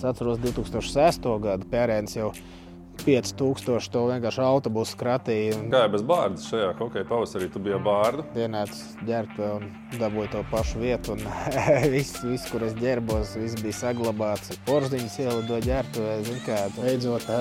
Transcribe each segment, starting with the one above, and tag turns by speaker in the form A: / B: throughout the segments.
A: Es atceros 2006. Gadu Pērēns jau 5000 to vienkārši autobusu kratīja.
B: Kā jau bez bārdas šajā hokeja pavasarī, tu biji bārda?
A: Ienāca ģērbtuvē un dabūja to pašu vietu. Viss, kur es ģērbos, viss bija saglabāts. Porziņas ielidoja ģērbtuvē, zin kā, beidzot,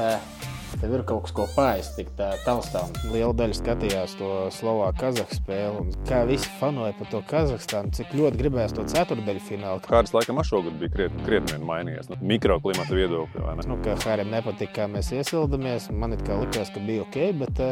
A: tev ir kaut kas, ko paēst, tik tā taustām. Liela daļa skatījās to Slovāku-Kazahu spēli. Un kā visi fanoja par to Kazahstānu, cik ļoti gribējās to ceturtdaļu finālu.
B: Kāds laikam šogad bija krietni mainījies. Mikroklimata viedokļi, vai ne?
A: Kā Harim nepatika, kā mēs iesildamies. Man it kā likās, ka bija ok, bet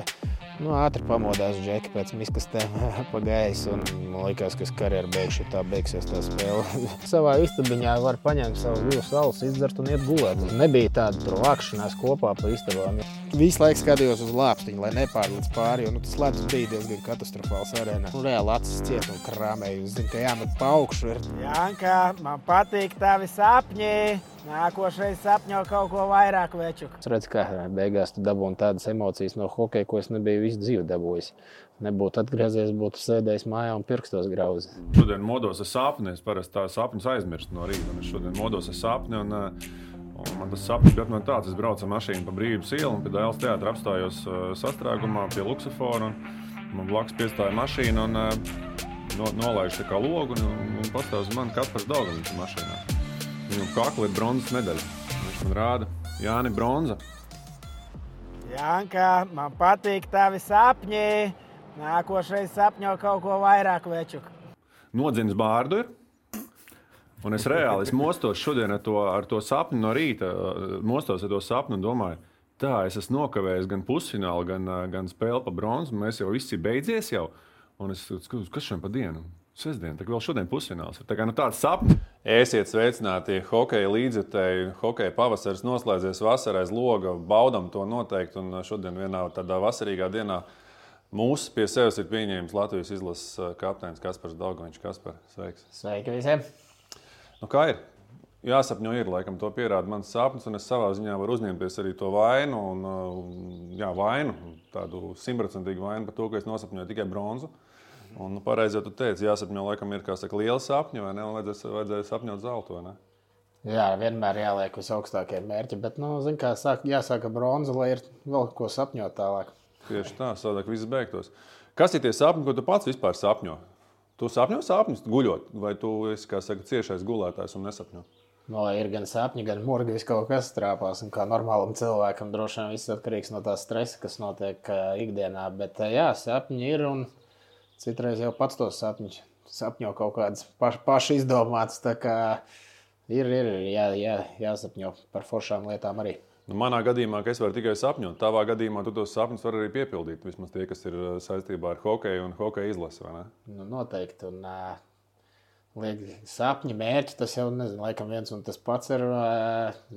A: ātri pamodās Džeki pēc miskastēm pagājis. Un man likās, ka es karjeru beigšu, tā beigsies tā spēle. Savā istabiņā var paņemt savus 2 alus, izdzert un iet gulēt. Nebija tāda tur vākšanās kopā pa istabām. Visu laiku skatījos uz lāpstiņu, lai nepārlīdz pāri, jo tas ledus bija diezgan katastrofāls arēnā. Reāli acis ciet un krāmēju. Zinu, ka jāmet pa augšu.
C: Janka, man patīk tavi sapņi. Nākošais sapņo kaut ko vairāk, večuk.
A: Es redzu, kā beigās tu dabūni tādas emocijas no hokeja, ko es nebiju visu dzīvi dabūjis. Nebūtu atgriezies, būtu sēdējis mājā un pirkstos grauzi.
B: Šodien modos ar sapni. Es parasti tā sapņus aizmirstu no rīta. Es šodien modos ar sapni un man tas sapnis bija no tāds. Es braucu ar mašīnu pa Brīvības ielu un pie Dailes teātra apstājos sastrēgumā pie Luksafora. Man blakus piestāja mašīna un nolaiž tā kā logu un pastāv uz mani Kaspars Daugavins mašīnā. Viņam kakla ir bronzas medaļa. Viņš man rāda, Jāni, bronza.
C: Janka, man patīk tavi sapņi. Nākošais sapņo kaut ko vairāk, večuk.
B: Nodzins bārdu ir. Un es reāli mostos šodien ar to sapni no rīta. Mostos ar to sapni un domāju, tā, es esmu nokavējis gan pusfinālu, gan spēli pa bronzu. Mēs jau viss ir beidzies jau. Un es skatos, kas šodien pa dienu? Sestdien, tā vēl šodien pusfināls. Tā kā tāds sapnis. Esiet sveicināti hokeja līdzjutēji. Hokeja pavasaris noslēdzies vasarā aiz loga. Baudam to noteikti. Un šodien vienā tādā vasarīgā dienā mūsu pie sevis ir pieņēmis Latvijas izlases kapteinis Kaspars Daugavins. Kaspar, sveiks.
A: Sveiki visiem.
B: Nu, kā ir? Jāsapņo ir, laikam to pierāda mans sapnis. Un es savā ziņā varu uzņemties arī to vainu. Vainu, tādu 100% vainu par to, ka es nosapņoju tikai bronzu. Un pareizi jau tu teici, jāsapņo laikam ir, kā saka, liela sapņa, vai ne? Un vajadzēja sapņot zeltu, vai ne?
A: Jā, vienmēr jāliek uz augstākie mērķi, bet, zin kā, jāsāka bronza, lai ir vēl ko sapņot tālāk.
B: Tieši tā, savādāk viss beigtos. Kas ir tie sapņi, ko tu pats vispār sapņo? Tu sapņo sapņus guļot, vai tu esi, kā saka, ciešais gulētājs un nesapņo?
A: Ir gan sapņi, gan murgi, viss kaut kas trāpās, un kā normālam cilvēkam droši vien viss atkarīgs no tā stresa, kas notiek ikdienā, bet jā, sapņi ir un citreiz jau pats tos sapņo kaut kādas paši izdomātas, tā kā ir jāsapņo par foršām lietām arī.
B: Nu, manā gadījumā, ka es varu tikai sapņot, tavā gadījumā tu tos sapņus var arī piepildīt, vismaz tie, kas ir saistībā ar hokeju un hokeja izlasi, vai ne?
A: Nu, noteikti, un sapņi, mērķi, tas jau, nezinu, laikam viens un tas pats ir,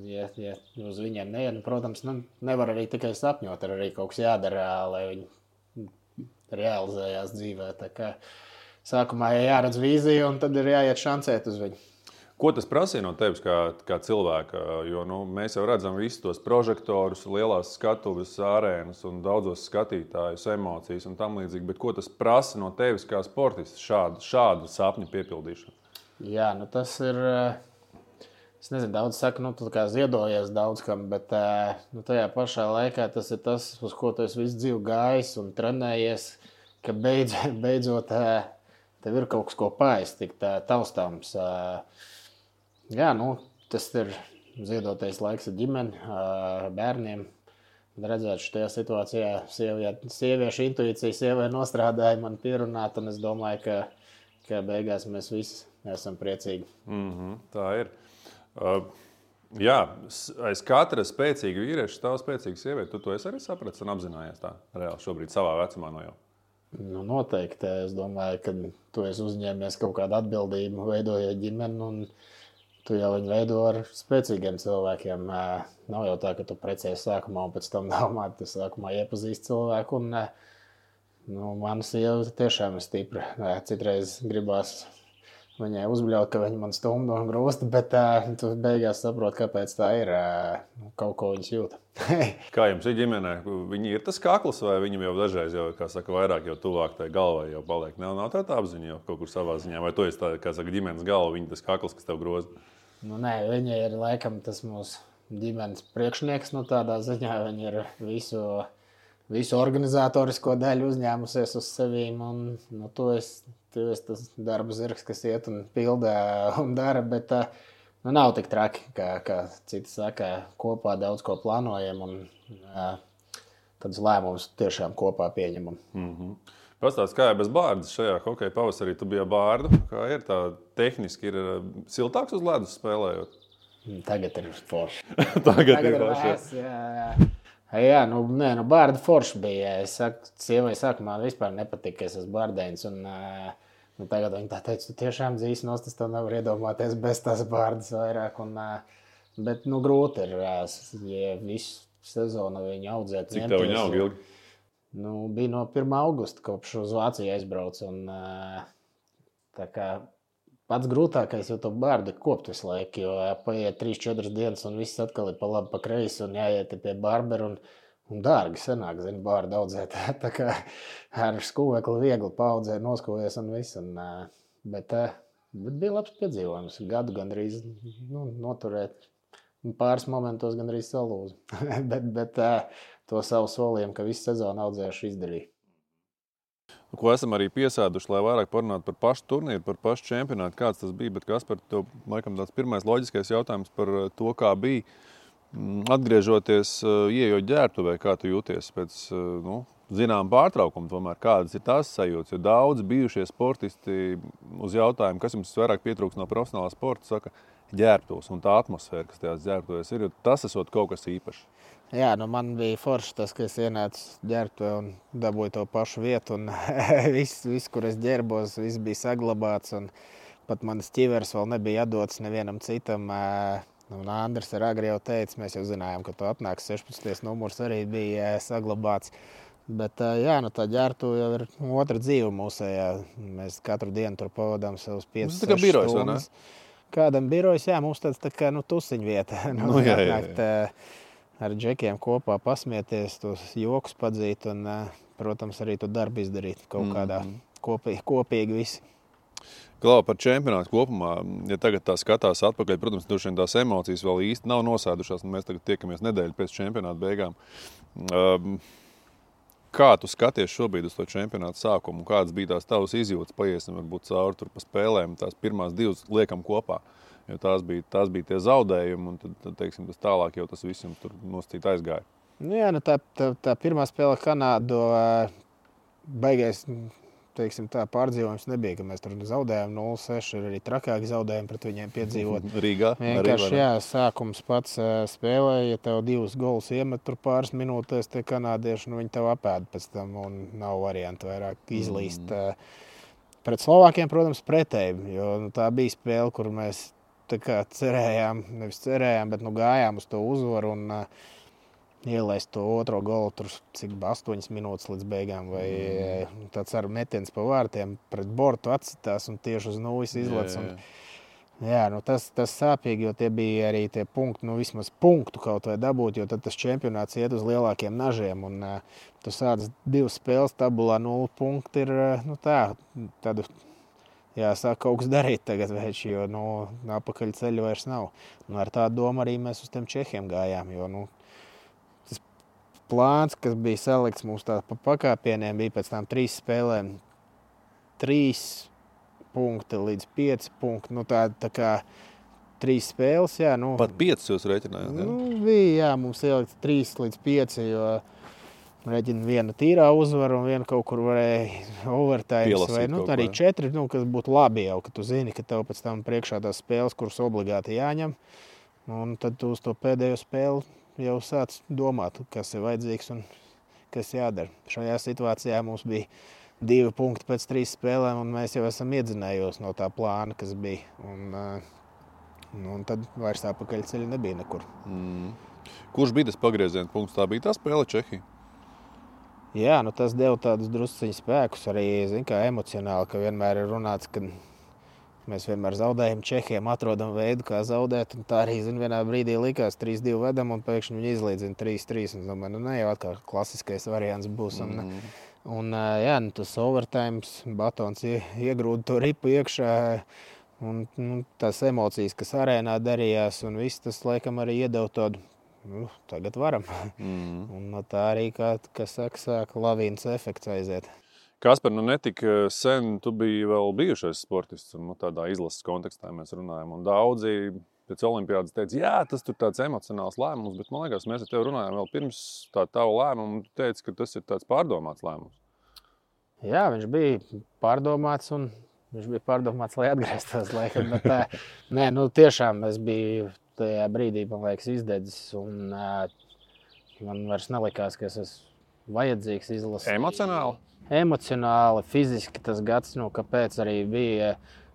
A: ja uz viņiem neiet, protams, nevar arī tikai sapņot, ir arī kaut kas jādara, lai viņi realizējās dzīvē. Tā kā sākumā jāredz vīzija un tad ir jāiet šancēt uz viņu.
B: Ko tas prasīja no tevis kā cilvēka? Jo mēs jau redzam visus tos prožektorus, lielās skatuves, arēnas un daudzos skatītājus, emocijas un tam līdzīgi. Bet ko tas prasa no tevis kā sportists šādu sapņu piepildīšanu?
A: Jā, tas ir... Es nezinu, daudz saka, tu kā ziedojies daudz kam, bet tajā pašā laikā tas ir tas, uz ko tu esi visu dzīvi gājis un trenējies, ka beidzot tev ir kaut kas, ko paēst, tik taustāms. Jā, tas ir ziedotais laiks ar ģimeni, bērniem. Redzēt šajā situācijā sieviešu intuīcija sievai nostrādāja man pierunāt, un es domāju, ka beigās mēs visi esam priecīgi.
B: Tā ir. Jā, aiz katra spēcīga vīrieša stāv spēcīga sieviete. Tu to esi arī sapratis un apzinājies tā reāli šobrīd savā vecumā no jau?
A: Noteikti. Es domāju, ka tu esi uzņēmies kaut kādu atbildību, veidojot ģimeni, un tu jau viņu veido ar spēcīgiem cilvēkiem. Nav jau tā, ka tu precies sākumā un pēc tam domā, tu sākumā iepazīsti cilvēku. Mana sieva tiešām ir stipra. Citreiz gribās viņai uzbļaut, ka viņa man stumda un grūsta, bet tu beigās saproti, kāpēc tā ir. Kaut ko viņas jūta.
B: Kā jums ir ģimenē? Viņi ir tas kakls vai viņam jau dažreiz, kā saka, vairāk jau tuvāk tai galvai jau paliek? Nav tā apziņa jau kaut kur savā ziņā? Vai tu esi tā, kā saka, ģimenes galva, viņa tas kakls, kas tev groza?
A: Nu, nē, viņa ir laikam tas mūsu ģimenes priekšnieks. Nu, tādā ziņā viņa ir visu organizatorisko daļu uzņēmusies uz sevīm. Un, nu, tu esi tas darba zirgs, kas iet un pildā un dara. Bet nu, nav tik traki, kā citi saka. Kopā daudz ko plānojam un tādus lēmumus tiešām kopā pieņemam.
B: Pastāst, kā ir bez bārdas šajā hokeja pavasarī? Tu biji bārdu. Kā ir tā tehniski? Ir siltāks uz ledus spēlējot?
A: Tagad ir forši.
B: Tagad ir forši.
A: Jā, nu bārda forši bija. Es saku, sievai sākumā vispār nepatika, ka es esmu bārdēns. Un tagad viņa tā teica, tu tiešām dzīves nost, es to nevaru iedomāties bez tās bārdas vairāk. Bet nu grūti ir, ja visu sezonu viņu audzēt.
B: Cik tev viņa aug ilgi?
A: Nu, bija no 1. augusta, kopš uz Vāciju aizbraucu. Tā kā pats grūtākais jau to bārdu kopt visu laiku, jo paiet 3-4 dienas un viss atkal ir pa labi, pa kreisi un jāiet pie bārberu un dārgi sanāk, zini, bārdu audzēt. Tā kā ar skūvekli viegli paaudzē, noskūvies un viss. Bet bija labs piedzīvojums. Gadu gandrīz noturēt. Pāris momentos gandrīz salūzu. bet to savu solījumu, ka visu sezonu audzējuši izdarīja.
B: Ko esam arī piesēduši, lai vairāk parunātu par pašu turnīru, par pašu čempionātu, kāds tas bija. Bet Kaspar, tev laikam tāds pirmais loģiskais jautājums par to, kā bija. Atgriežoties, ieejot ģērbtuvē, kā tu jūties pēc zinām pārtraukumu, tomēr kādas ir tās sajūtas? Jo daudz bijušie sportisti uz jautājumu, kas jums vairāk pietrūks no profesionālā sporta, saka ģērbtuvs un tā atmosfēra, kas tajās ģērbtuvēs ir, jo tas esot kaut kas īpašs.
A: Jā, nu man bija forši tas, ka es ienācu ģērbtuvē un dabūju to pašu vietu. Un viss, kur es ģērbos, viss bija saglabāts. Un pat manas ķiveres vēl nebija atdotas nevienam citam. Un Andris ar agri jau teica, mēs jau zinājām, ka tu atnāks 16. numurs arī bija saglabāts. Bet jā, nu tā ģērbtuve jau ir otra dzīve mūsējā. Mēs katru dienu tur pavadām savus 5-6 stundas. Kādam birojas, jā, mums tāds tā kā tusiņu vieta. Jā. Ar džekiem kopā pasmieties, tos jokus padzīt un, protams, arī to darbu izdarīt kaut kādā kopīgi visi.
B: Klau, par čempionātu kopumā, ja tagad tā skatās atpakaļ, protams, tās emocijas vēl īsti nav nosēdušās, un mēs tagad tiekamies nedēļu pēc čempionāta beigām. Kā tu skaties šobrīd uz to čempionātu sākumu? Kādas bija tās tavas izjūtas? Paiesim varbūt cauri tur pa spēlēm, tās pirmās 2 liekam kopā. Jo tās bija tie zaudējumi, un tad teiksim, tas tālāk jau tas viss jums tur nosacīt aizgāja.
A: Jā, nu tā pirmā spēle Kanādu baigais, teiksim, tā pārdzīvojums nebija, ka mēs tur zaudējām 0-6, ir arī trakāki zaudējumi pret viņiem piedzīvot.
B: Rīgā?
A: Vienkārši, jā, sākums pats spēlē, ja tev 2 golus iemet tur pāris minūtēs, tie kanādieši, viņi tev apēd pēc tam, un nav variantu vairāk izlīst. Pret Slovākiem, protams, pretēji, jo tā bija spēle, kur mēs tā kā nevis cerējām, bet gājām uz to uzvaru un ielaist to otro golu tur, cik 8 minūtes līdz beigām, vai tāds ar metiens pa vārtiem pret bortu atsitās un tieši uz nulles izlec. Jā, tas sāpīgi, jo tie bija arī tie punkti, vismaz punktu kaut vai dabūt, jo tad tas čempionāts iet uz lielākiem nažiem un tu sāc 2 spēles tabulā 0 punkti ir, tādu jāsāk kaut kas darīt tagad, veči, jo apakaļ ceļu vairs nav. Un ar tādu domu arī mēs uz tiem Čehiem gājām, jo tas plāns, kas bija salikts mums tā pa pakāpieniem, bija pēc tām 3 spēlēm 3 punkti līdz 5 punkti. Tā kā 3 spēles, jā.
B: Pat 5 jūs reiķinājāt?
A: Bija, jā, mums ielikt 3 līdz 5, jo rēķina viena tīrā uzvara un viena kaut kur varēja overtimes vai arī 4, kas būtu labi jau, ka tu zini, ka tev pēc tam priekšā tās spēles, kuras obligāti jāņem. Un tad tu uz to pēdējo spēli jau sāc domāt, kas ir vajadzīgs un kas jādara. Šajā situācijā mums bija 2 punkti pēc 3 spēlēm un mēs jau esam iedzinējos no tā plāna, kas bija. Un tad vairs apakaļ ceļa nebija nekur.
B: Kurš bija tas pagrieziena punkts? Tā bija tā spēle Čehija?
A: Jā, tas deva tādus drusciņu spēkus arī, kā emocionāli, ka vienmēr ir runāts, ka mēs vienmēr zaudējam Čehiem, atrodam veidu, kā zaudēt, un tā arī, vienā brīdī likās 3-2 vedam, un pēkšņi viņi izlīdzina 3-3, un domāju, ne jau atkal klasiskais variants būs, un jā, tas overtimes, Batons iegrūda to ripu iekšā, Un tās emocijas, kas arēnā darījās, un viss tas, laikam, arī iedeva tādu, tagad varam. Un no tā arī, kā saka, lavīnas efekts aiziet.
B: Kaspar, netika sen, tu biji vēl bijušais sportists, un tādā izlases kontekstā mēs runājam, un daudzi pēc olimpiādas teica, jā, tas tur tāds emocionāls lēmums, bet man liekas, mēs ar tevi runājām vēl pirms tā tavu lēmumu, un tu teici, ka tas ir tāds pārdomāts lēmums.
A: Jā, viņš bija pārdomāts, un viņš bija pārdomāts, lai atgrieztos laikam, bet nē, tiešām es biju tajā brīdī, man liekas, izdedzis, un man vairs nelikās, ka es esmu vajadzīgs izlasīt.
B: Emocionāli?
A: Emocionāli, fiziski tas gads, kāpēc arī bija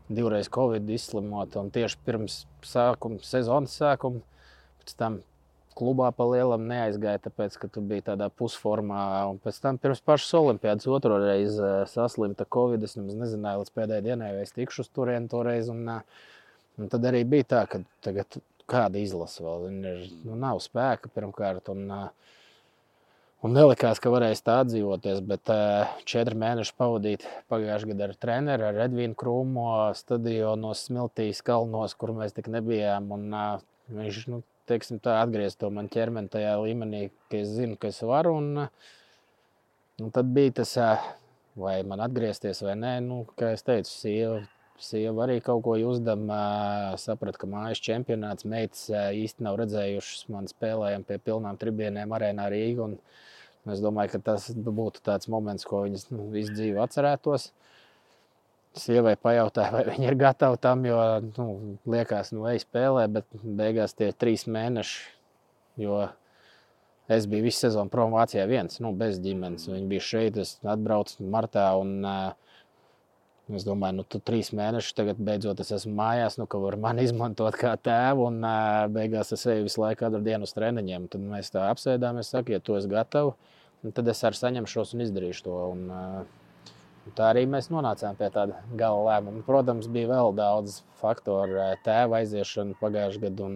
A: divreiz Covid izslimot, un tieši pirms sezonas sākuma, pēc tam klubā pa lielam neaizgāja, tāpēc, ka tu biji tādā pusformā, un pēc tam pirms pašas olimpiādas otro reizi saslimta Covid, es nemaz nezināju līdz pēdējai dienai, vai es tikšu uz turieni toreiz, un tad arī bija tā, ka tagad kāda izlasa vēl, nav spēka pirmkārt, un nelikās, ka varēs tā atdzīvoties, bet 4 mēneši pavadīt pagājušajā gadā ar treneri, ar Edvīnu Krūmo, stadionos, Smiltīs, Kalnos, kur mēs tik nebijām, un viņš, teiksim tā, atgriezt to man ķermeni tajā līmenī, ka es zinu, ka es varu, un tad bija tas, vai man atgriezties vai nē, kā es teicu, sieva arī kaut ko uzdam, saprat, ka mājas čempionāts, meitas īsti nav redzējušas, man spēlējam pie pilnām tribīnēm arēnā Rīga, un es domāju, ka tas būtu tāds moments, ko viņas visu dzīvi atcerētos. Sievai pajautāja, vai viņa ir gatava tam, jo liekas, ej spēlē, bet beigās tie 3 mēneši, jo es biju visu sezonu prom Vācijā viens, bez ģimenes. Viņi bija šeit, es atbraucu martā, un es domāju, tu 3 mēnešus tagad beidzot es esmu mājās, ka var mani izmantot kā tēvu, un beigās es eju visu laiku katru dienu uz treniņiem. Tad mēs tā apsēdāmies, saka, ja tu esi gatava, tad es arī saņemšos un izdarīšu to. Un tā arī mēs nonācām pie tāda gala lēmuma. Protams, bija vēl daudz faktoru, tēva aiziešana pagājušajā gadā, un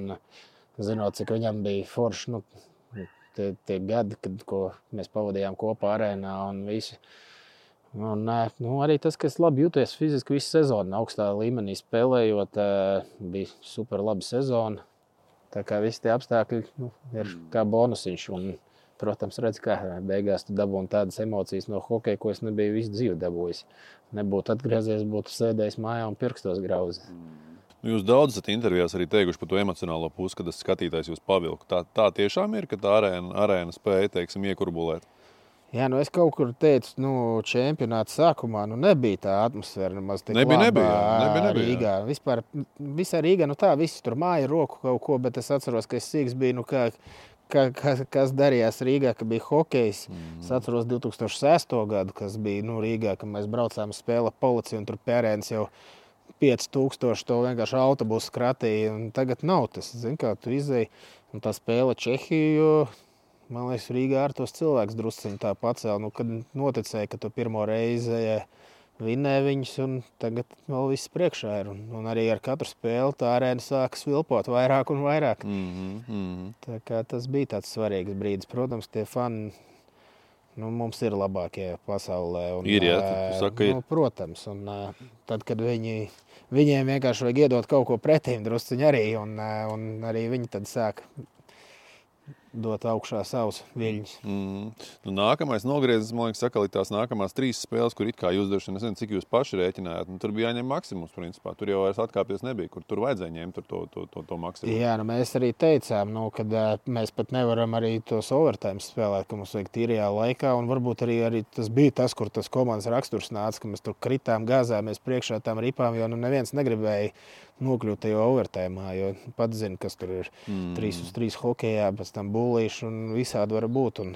A: zinot, cik viņam bija forši tie gadi, ko mēs pavadījām kopā arēnā un visu. Un, arī tas, ka es labi jūtos fiziski visu sezonu, augstā līmenī spēlējot, bija super laba sezona. Tā kā visi tie apstākļi ir kā bonusiņš. Un, protams, redz, kā beigās tu dabūni tādas emocijas no hokeja, ko es nebiju visu dzīvi dabūjis. Nebūtu atgriezies, būtu sēdējis mājā un pirkstos grauzi.
B: Jūs daudz esat intervijās arī teikuši par to emocionālo pusi, kad tas skatītājs jūs pavilku. Tā tiešām ir, ka tā arēna spēja, teiksim, iekurbulēt?
A: Jā, es kaut kur teicu, čempionāta sākumā nebija tā atmosfēra nemaz tik laba.
B: Nebija.
A: Rīgā. Vispār, visā Rīgā, visi tur māja roku kaut ko, bet es atceros, ka es sīks biju, kas darījās Rīgā, ka bija hokejs. Es atceros 2006. Gadu, kas bija Rīgā, kad mēs braucām spēle Policija, un tur pērēns jau 5000 to vienkārši autobusu kratīja. Tagad nav tas, kā tu izēji. Un tā spēle Čehiju, man liekas, Rīgā ar tos cilvēks drusciņi tā pacēla. Kad noticēja, ka tu pirmo reizi vinnē viņus, un tagad vēl viss priekšā ir. Un arī ar katru spēli tā arēna sākas vilpot vairāk un vairāk. Tā kā tas bija tāds svarīgs brīdis. Protams, tie fani mums ir labākie pasaulē. Un,
B: ir, jā, tu saki, ir.
A: Protams, un tad, kad viņiem vienkārši vajag iedot kaut ko pretīm drusciņi arī, un arī viņi tad sāk dot augšā savus viļņus.
B: Nākamais nogriezis, man liekas, sakal, tās nākamās 3 spēles, kur it kā jūs droši, nezinu, cik jūs paši rēķinājāt. Tur bija jāņem maksimums, principā. Tur jau vairs atkāpties nebija, kur tur vajadzēja ņemt to maksimumu.
A: Jā, mēs arī teicām, kad mēs pat nevaram arī tos overtime spēlēt, ka mums vajag tīrajā laikā, un varbūt arī tas bija tas, kur tas komandas raksturs nāca, ka mēs tur kritām, gāzāmies priekšā tām ripām, jo neviens negribēja nokļūt tajā overtime, jo pats zina, kas tur ir 3-uz-3 hokejā, pēc tam būlīši un visādi var būt. Un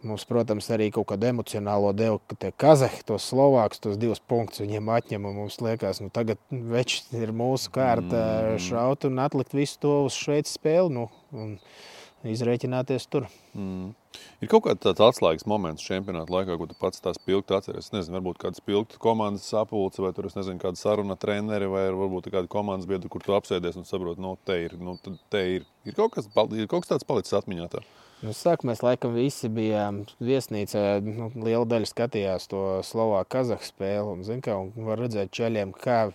A: mums, protams, arī kaut kādu emocionālo devu, ka tie kazahi, tos slovākus, tos 2 punktus viņiem atņem, un mums liekas, tagad veči ir mūsu kārta šaut un atlikt visu to uz Šveices spēli, un izrēķināties tur.
B: Ir kaut kāds tāds atslēgas moments čempionāta laikā, ko tu pats tās pilgti atceries? Es nezinu, varbūt kāds pilgti komandas sapulce, vai tur, es nezinu, kāda saruna treneri, vai varbūt kāda komandas biedra, kur tu apsēdies un saproti, te ir. Ir kaut kas tāds palicis atmiņā tā?
A: Sāk, mēs laikam visi bijām viesnīcā, liela daļa skatījās to Slovāku Kazahu spēli, un var redzēt čaļiem, kā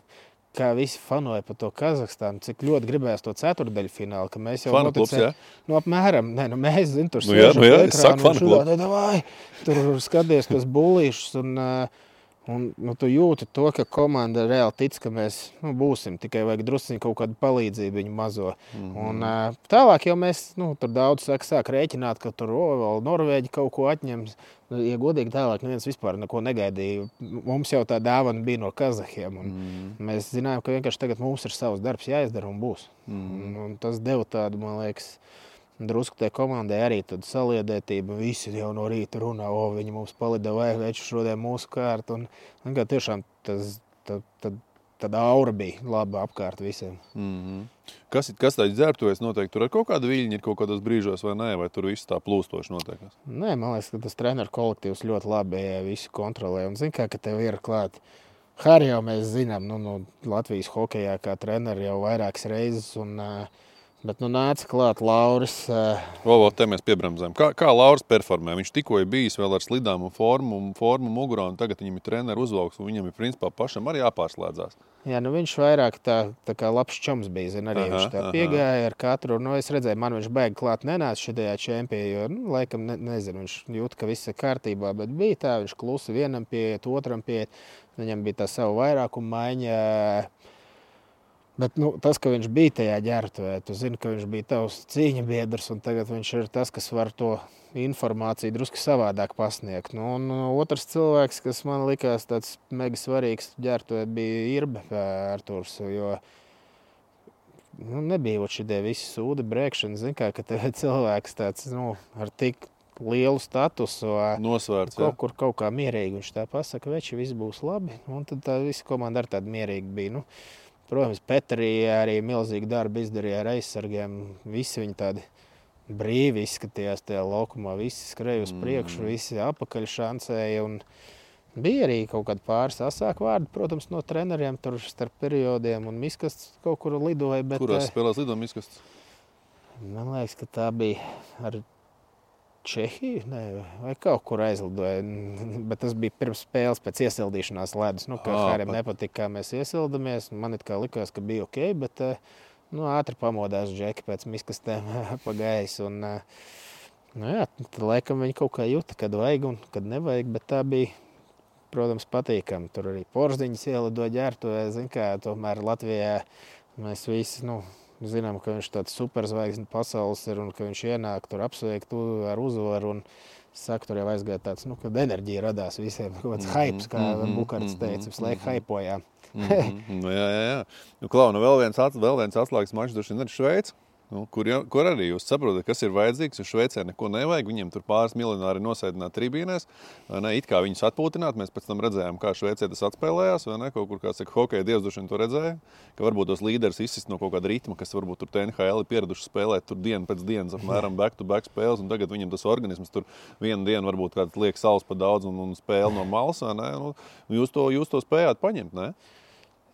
A: kā visi fanoja par to Kazahstānu, cik ļoti gribējās to ceturdaļu finālu, ka mēs jau
B: Fanu klubs, jā?
A: Nu, apmēram, mēs, zin, tur
B: jā,
A: sēžam
B: es saku fanu klubu.
A: tur skaties tos bullīšus un tu jūti to, ka komanda reāli tic, ka mēs būsim, tikai vajag drusciņ kaut kādu palīdzību viņu mazo. Un tālāk jau mēs, tur daudz sāk rēķināt, ka tur vēl Norvēģi kaut ko atņems. Ja godīgi tālāk, neviens vispār neko negaidīja. Mums jau tā dāvana bija no Kazahiem. Mēs zinājām, ka vienkārši tagad mums ir savs darbs jāizdara un būs. Un tas deva tādu, man liekas, drusku tai komandai arī tādu saliedētību. Visi jau no rīta runā, viņi mums palida vai veču šodien mūsu kārtu. Un kā tiešām tāda aura bija laba apkārt visiem.
B: Kas tāds dzērbtojas noteikti? Tur ar kaut kādu viļņu ir kaut kādos brīžos vai nē? Vai tur viss tā plūstoši notiekās?
A: Nē, man liekas, ka tas treneru kolektīvs ļoti labi visu kontrolē. Un zin kā, ka tev ir klāt. Hari jau mēs zinām, Latvijas hokejā kā treneri jau vairākas reizes. Bet nāca klāt Lauris.
B: Te mēs piebremzējam. Kā Lauris performē? Viņš tikko ir bijis vēl ar slidām un formu mugurā, un tagad viņam ir treneru uzvalks, un viņam ir principā pašam arī jāpārslēdzās.
A: Jā, viņš vairāk tā kā labs čoms bija, arī viņš tā piegāja ar katru. Es redzēju, man viņš baigi klāt nenāca šajā čempijā, jo, laikam, nezinu, viņš jūt, ka viss ir kārtībā, bet bija tā, viņš klusi vienam pieiet, otram pieiet, viņam bija tā savu vairākumu maiņa. Bet tas, ka viņš bija tajā ģērbtuvē, tu zini, ka viņš bija tavs cīņa biedrs, un tagad viņš ir tas, kas var to informāciju drusku savādāk pasniegt. Un otrs cilvēks, kas man likās tāds mega svarīgs ģērbtuvē, bija Irbe Arturs, jo nebija šitie visi sūdi brēkšana. Zini, ka tev ir cilvēks tāds, ar tik lielu statusu,
B: nosvērts,
A: kaut kā mierīgi viņš tā pasaka, veči, viss būs labi, un tad tā visa komanda ar tādu mierīgi bija. Protams, Petrī arī milzīgi darbi izdarīja ar aizsargiem. Visi viņi tādi brīvi izskatījās tajā laukumā. Visi skrēja uz priekšu, visi apakaļ šancēja. Un bija arī kaut kādi pāris asāku vārdi, protams, no treneriem tur starp periodiem. Un Miskasts kaut kur lidoja.
B: Kurās spēlēs lidoja Miskasts?
A: Man liekas, ka tā bija ar Čehiju, vai kaut kur aizlidoja, bet tas bija pirms spēles pēc iesildīšanās ledus. Kā Harim nepatika, kā mēs iesildamies. Man it kā likās, ka bija ok, bet ātri pamodās Džeki pēc miskastēm pa gaisu. Tad laikam viņi kaut kā juta, kad vajag un kad nevajag, bet tā bija, protams, patīkami. Tur arī Porziņas ielidoja ģērbtuvē, tomēr Latvijā mēs visi, zinām, ka viņš tāds superzvaigznes pasaules ir un ka viņš ienāk tur apsveikt ar uzvaru un saka, tur jau aizgāja tāds, kad enerģija radās visiem, kaut kāds haips, kā Bukarts teica, visu laiku haipojām.
B: Jā. Klau, vēl viens atslēgas mačs droši vien ir Šveica. Kur arī jūs saprotat, kas ir vajadzīgs, jo Šveicē neko nevajag. Viņiem tur pāris miljonāri nosēdināt tribīnēs, it kā viņus atpūtināt. Mēs pēc tam redzējām, kā Šveicē tas atspēlējās, kaut kur, kā saka, hokeja dievs droši vien to redzēja, ka varbūt tos līderis izsist no kaut kāda ritma, kas varbūt tur NHL ir pieraduši spēlēt tur dienu pēc dienas, apmēram back-to-back spēles, un tagad viņam tas organisms tur vienu dienu varbūt kāds liek saules pa daudz un spēle no malas, jūs to spējāt paņemt, ne?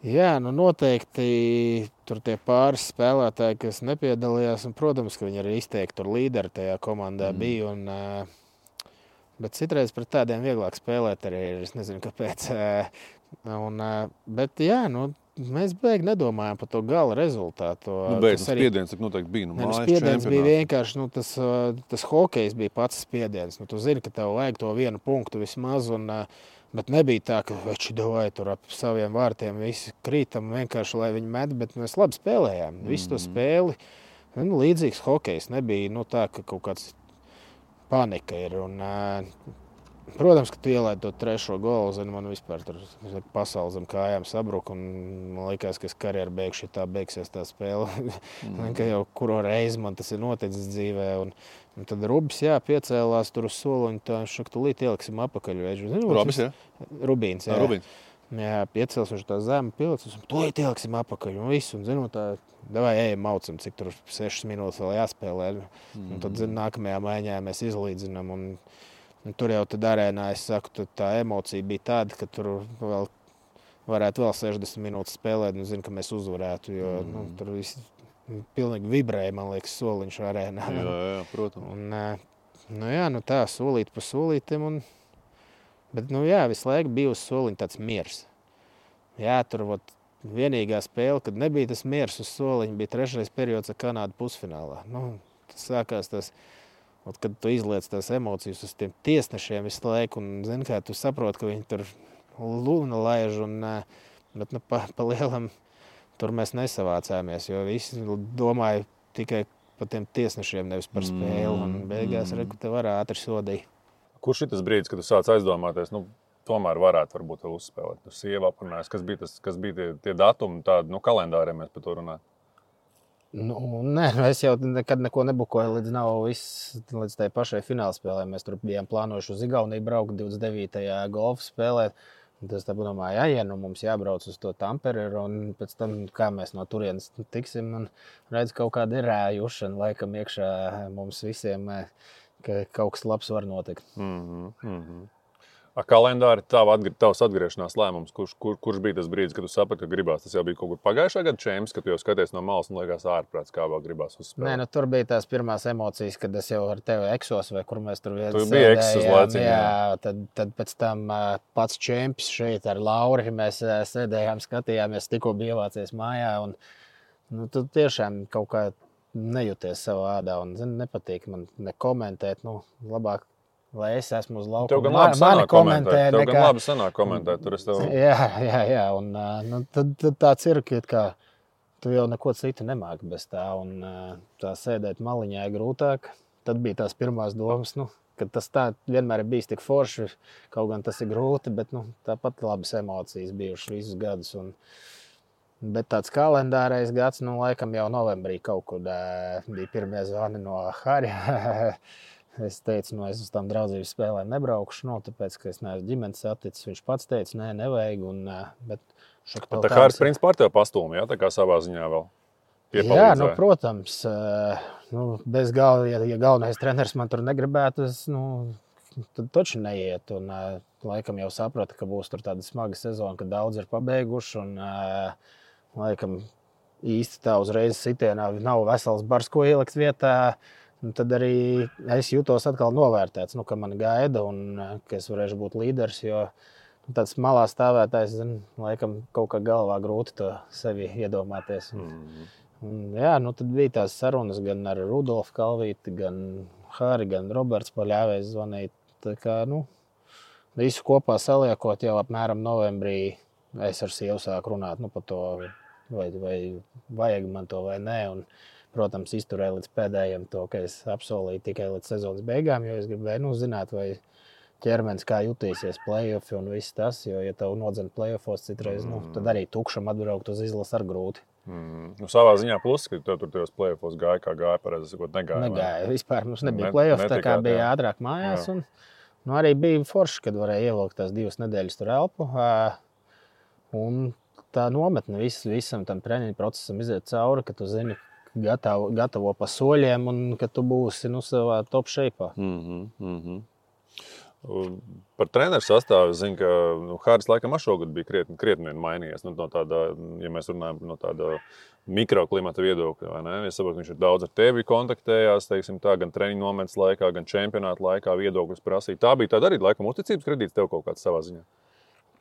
A: Jā, noteikti tur tie pāris spēlētāji, kas nepiedalījās, un, protams, ka viņi arī izteikti tur līderi tajā komandā bija. Bet citreiz pret tādiem vieglāk spēlēt arī ir, es nezinu, kāpēc. Bet jā, mēs beigi nedomājam par to gala rezultātu.
B: Spiediens noteikti bija.
A: Spiediens bija vienkārši, tas hokejs bija pats spiediens. Tu zini, ka tev vajag to vienu punktu vismaz, bet nebija tā, ka veči davai tur ap saviem vārtiem visi krītam vienkārši, lai viņi met, bet mēs labi spēlējām. Visu to spēli, līdzīgs hokejs, nebija tā, ka kaut kāds panika ir. Protams, ka tu ielaidi to trešo golu, man vispār tur pasauli zem kājām sabruka, un man likās, ka es karjeru beigšu, tā beigsies tā spēle. Ka jau kuro reizi man tas ir noticis dzīvē, un tad Rubis, piecēlās tur uz soliņu, tā viņš saka, tūlīt ieliksim apakaļ.
B: Rubis, jā?
A: Rubīns, jā.
B: Rubīns.
A: Jā, piecēls viņš tā zemi pilicis, un tūlīt ieliksim apakaļ, un visu, un tā, davai ejam maucam, cik tur 6 minūtes vēl jāspēlē. Un tad, nākamajā maiņā mēs izlīdzinām, un tur jau tad arēnā, es saku, tā emocija bija tāda, ka tur varētu vēl 60 minūtes spēlēt, un zinu, ka mēs uzvarētu, jo tur viss pilnīgi vibrēja, man liekas, soliņš arēnā.
B: Jā, protams.
A: Un, tā, solīt pa solītim, bet, visu laiku bija uz soliņa tāds miers. Jā, tur vienīgā spēle, kad nebija tas miers uz soliņa, bija 3. periods ar Kanādu pusfinālā. Tas sākās tas, kad tu izliec tās emocijas uz tiem tiesnešiem visu laiku, un, zini, kā tu saproti, ka viņi tur lūna laiž, bet pa lielam tur mēs nesavācāmies, jo visi domāja tikai par tiem tiesnešiem, nevis par spēli, un beigās te var ātri sodīt.
B: Kurš ir tas brīdis, kad tu sāc aizdomāties, tomēr varētu varbūt vēl uzspēlēt? Tu sieva aprunājas, kas bija tie datumi, tādi, kalendāriem mēs par to runājam?
A: Nē, es jau nekad neko nebukoju līdz tai pašai finālspēlē. Mēs tur bijām plānojuši uz Igauniju braukt 29. golfu spēlēt. Tas tā domāja, mums jābrauc uz to Tamperi, un pēc tam, kā mēs no turienes tiksim, un redz, kaut kāda ir rājušana laikam iekšā mums visiem, ka kaut kas labs var notikt.
B: Kalendāri, tavs atgriešanās lēmums, kurš bija tas brīdis, kad tu saprati, ka gribās? Tas jau bija kaut kur pagājušā gada čemps, kad tu jau skaties no malas un liekas ārprāts, kā vēl gribās uzspēlēt.
A: Nē, tur bija tās pirmās emocijas, kad es jau ar tevi eksos, vai kur mēs tur
B: Tu biji eksos laiciņā.
A: Jā, tad pēc tam pats čemps šeit ar Lauri, mēs sēdējām, skatījāmies, tikko bija ievācies mājā, un tu tiešām kaut kā nejūties savā ādā, un nepatīk man nekomentēt, labāk. Lai es esmu uz laukuma.
B: Tev gan labi sanāk komentēt. Tur es tev...
A: Jā. Un tad tāds ir, ka tu jau neko citu nemāki bez tā. Un tā sēdēt maliņā ir grūtāk. Tad bija tās pirmās domas, ka tas tā vienmēr ir bijis tik forši. Kaut gan tas ir grūti, bet tāpat labas emocijas bijušas visus gadus. Bet tāds kalendārais gads, laikam jau novembrī kaut kur bija pirmie zvani no Harja. Es teicu, es uz tām draudzības spēlēm nebraukšu, tāpēc, ka es neesmu ģimenes saticis. Viņš pats teica, nē, nevajag. Bet
B: tā Hāris principā ar tevi pastūmi, tā kā savā ziņā vēl piepalīdzēja.
A: Jā, protams. Bez galva, ja galvenais treneris man tur negribētu, tad taču neiet. Un laikam jau saprata, ka būs tur tāda smaga sezona, ka daudz ir pabeiguši. Un laikam īsti tā uzreiz sitienā nav vesels bars, ko ielikt vietā. Tad arī es jūtos atkal novērtēts, ka man gaida un ka es varēšu būt līderis, jo tāds malā stāvētājs, laikam kaut kā galvā grūti to sevi iedomāties. Tad bija tās sarunas gan ar Rudolfu Kalvīti, gan Hāri, gan Roberts Paļāvējs zvanīt. Tā kā, visu kopā saliekot jau apmēram novembrī es ar sievu sāku runāt par to, vai vajag man to vai nē. Un, protams, izturēju līdz pēdējiem to, ka es apsolīju tikai līdz sezonas beigām, jo es gribēju zināt, vai ķermenis kā jutīsies play-offi un viss tas, jo, ja tev nodzen play-offos citreiz, tad arī tukšam atbraukt uz izlases ar grūti.
B: Savā ziņā plus, ka tev tur tajos play-offos gāja, kā gāja, pareizi sakot, negāja.
A: Negāja, vispār mums nebija play-off, tā kā bija ātrāk mājās, un arī bija forši, kad varēja ievilkt tās 2 nedēļas tur elpu, un tā nometne visam tam treniņu procesam iziet cauri, ka tu zini, gatavo pa soļiem un ka tu būsi savā top shape'ā.
B: Par treneru sastāvu es zinu, ka Hāris laikam šogad bija krietni mainījies. No tāda, ja mēs runājam no tāda mikroklimata viedokļa, vai ne? Es saprotu, viņš ir daudz ar tevi kontaktējās, teiksim tā, gan treniņu nometnes laikā, gan čempionāta laikā viedokļus prasīja. Tā bija tāda arī laikam uzticības kredīts tev kaut kāds savā ziņā.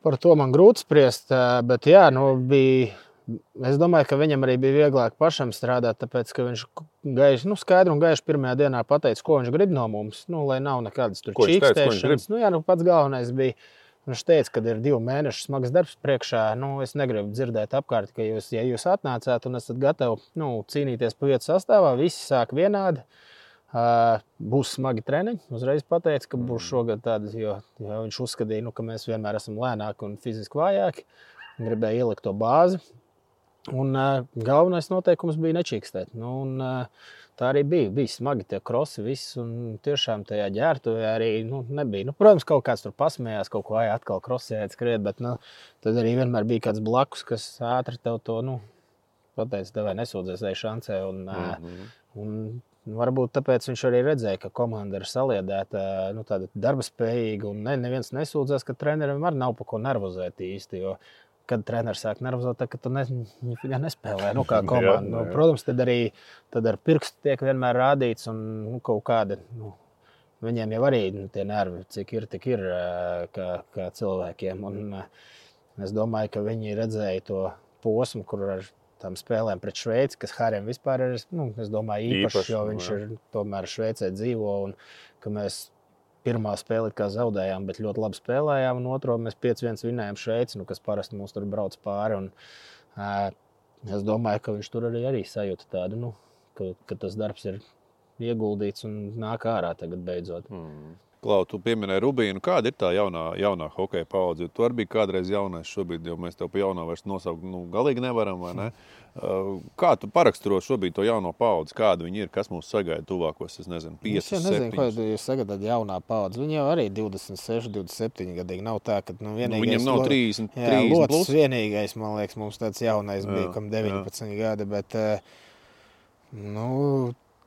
A: Par to man grūti spriest, bet jā, bija... Es domāju, ka viņam arī bija vieglāk pašam strādāt, tāpēc, ka viņš skaidri un gaiši pirmajā dienā pateica, ko viņš grib no mums, lai nav nekādas tur čīkstēšanas. Pats galvenais bija, viņš teica, ka ir 2 mēnešu smags darbs priekšā. Es negribu dzirdēt apkārt, ka ja jūs atnācāt un esat gatavi cīnīties pa vietu sastāvā, visi sāk vienādi. Būs smagi treniņi. Uzreiz pateica, ka būs šogad tādi, jo viņš uzskatīja, ka mēs vienmēr esam lēnāki un fiziski vājāki. Gribēja ielikt to bāzi. Un galvenais noteikums bija nečīkstēt. Tā arī bija smagi tie krosi viss, un tiešām tajā ģērbtuvē arī nebija. Protams, kaut kāds tur pasmējās, kaut ko atkal krosējāt skriet, bet tad arī vienmēr bija kāds blakus, kas ātri tev to pateica, tev vai nesūdzies vai šancē. Un varbūt tāpēc viņš arī redzēja, ka komanda ir saliedēta, tāda darba spējīga, un neviens nesūdzās, ka trenerim arī nav pa ko nervozēt īsti, jo kad treneris sāk nervozēt, tad tu nespēlē kā komanda. Protams, tad ar pirkstu tiek vienmēr rādīts un kaut kāda, viņiem jau arī tie nervi, cik ir, tik ir kā cilvēkiem. Un es domāju, ka viņi redzēja to posmu, kur ar tām spēlēm pret Šveici, kas Harim vispār ir, es domāju, īpašs, jo viņš ir tomēr Šveicē dzīvo un ka mēs pirmā spēle kā zaudējām, bet ļoti labi spēlējām, un otro mēs 5-1 vinējām Šveici, kas parasti mums tur brauc pāri. Un, es domāju, ka viņš tur arī sajūta tādu, ka tas darbs ir ieguldīts un nāk ārā tagad beidzot.
B: Klau, tu pieminēji Rubīnu. Kāda ir tā jaunā hokeja paudze? Tu arī biji kādreiz jaunais, šobrīd jau mēs tev pa jaunā vairs nosaukt galīgi nevaram, vai ne? Kā tu paraksturo šobrīd to jauno paudzi? Kāda viņi ir? Kas mūs sagaida tuvākos, 5, 7?
A: Es nezinu, ko jūs sagaidāt jaunā paudze. Viņi jau arī 26, 27 gadīgi. Nav tā, ka vienīgais...
B: Viņam nav 30
A: Locis
B: plus.
A: Vienīgais, man liekas, mums tāds jaunais bija, kam 19 gadi, bet...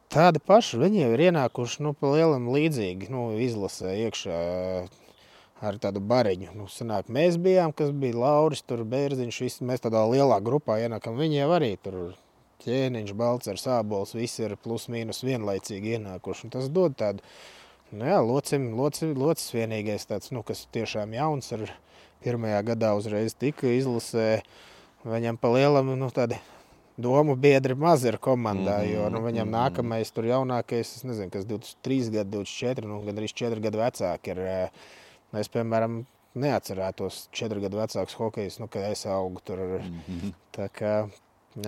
A: Tādi paši, viņi jau ir ienākuši pa lielam līdzīgi, izlasē iekšā ar tādu bariņu. Sanāk, mēs bijām, kas bija Lauris, tur Bērziņš, visi, mēs tādā lielā grupā ienākam. Viņi jau arī tur Ķēniņš, Balcers, Ābols, visi ir plus mīnus vienlaicīgi ienākuši. Un tas dod tādu, Locis vienīgais tāds, kas tiešām jauns ar pirmajā gadā uzreiz tika izlasē. Viņam pa lielam, tādi domu biedri maz ir komandā, jo viņam nākamais tur jaunākais, es nezinu, kas 23 gadi, 24, gandrīz 4 gadu vecāki ir. Es, piemēram, neatcerētos 4 gadu vecāks hokejs, kad es augu tur. Tā kā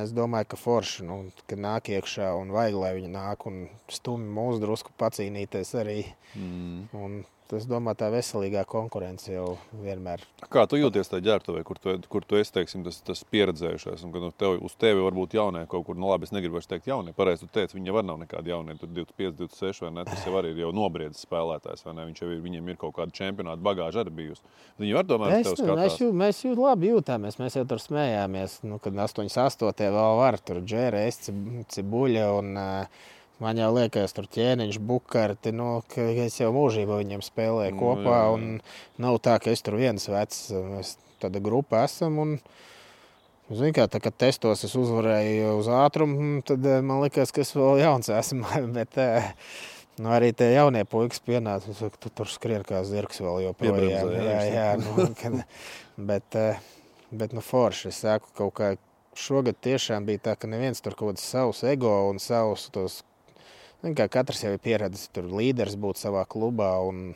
A: es domāju, ka forši, kad nāk iekšā un vajag, lai viņi nāk un stumi mūs drusku pacīnīties arī. Un es domāju, tā veselīgā konkurence jau vienmēr.
B: Kā tu jūties tajā ģērbtuvē, kur tu esi, teiksim, tas pieredzējušais, un kad uz tevi varbūt jaunie kaut kur, labi, es negribu vairs teikt jaunie, pareizi tu teici, viņi jau var nav nekādi jaunie, tur 25, 26 vai ne, tas jau arī ir jau nobriedzis spēlētājs, vai ne, viņiem ir kaut kāda čempionāta bagāža arī bijusi. Viņi var tomēr tev skatās.
A: Mēs labi jūtāmies, mēs jau tur smējāmies, kad 88. vēl var, tur Džēres, Cibuļa un... Man jau liekas, tur Ķēniņš, Bukarti, ka es jau mūžībā viņiem spēlēju kopā, un nav tā, ka es tur viens vecs. Mēs tāda grupa esam, un, zini kā, kad testos es uzvarēju uz ātrumu, tad man liekas, ka es vēl jauns esmu, bet arī tie jaunie puikas pienāca, tu tur skrien kā zirgs vēl joprojām. Bet forši, es saku, kaut kā šogad tiešām bija tā, ka neviens tur kaut kāds savus ego un savus tos, kā katrs jau ir pieredzis, tur līderis būt savā klubā, un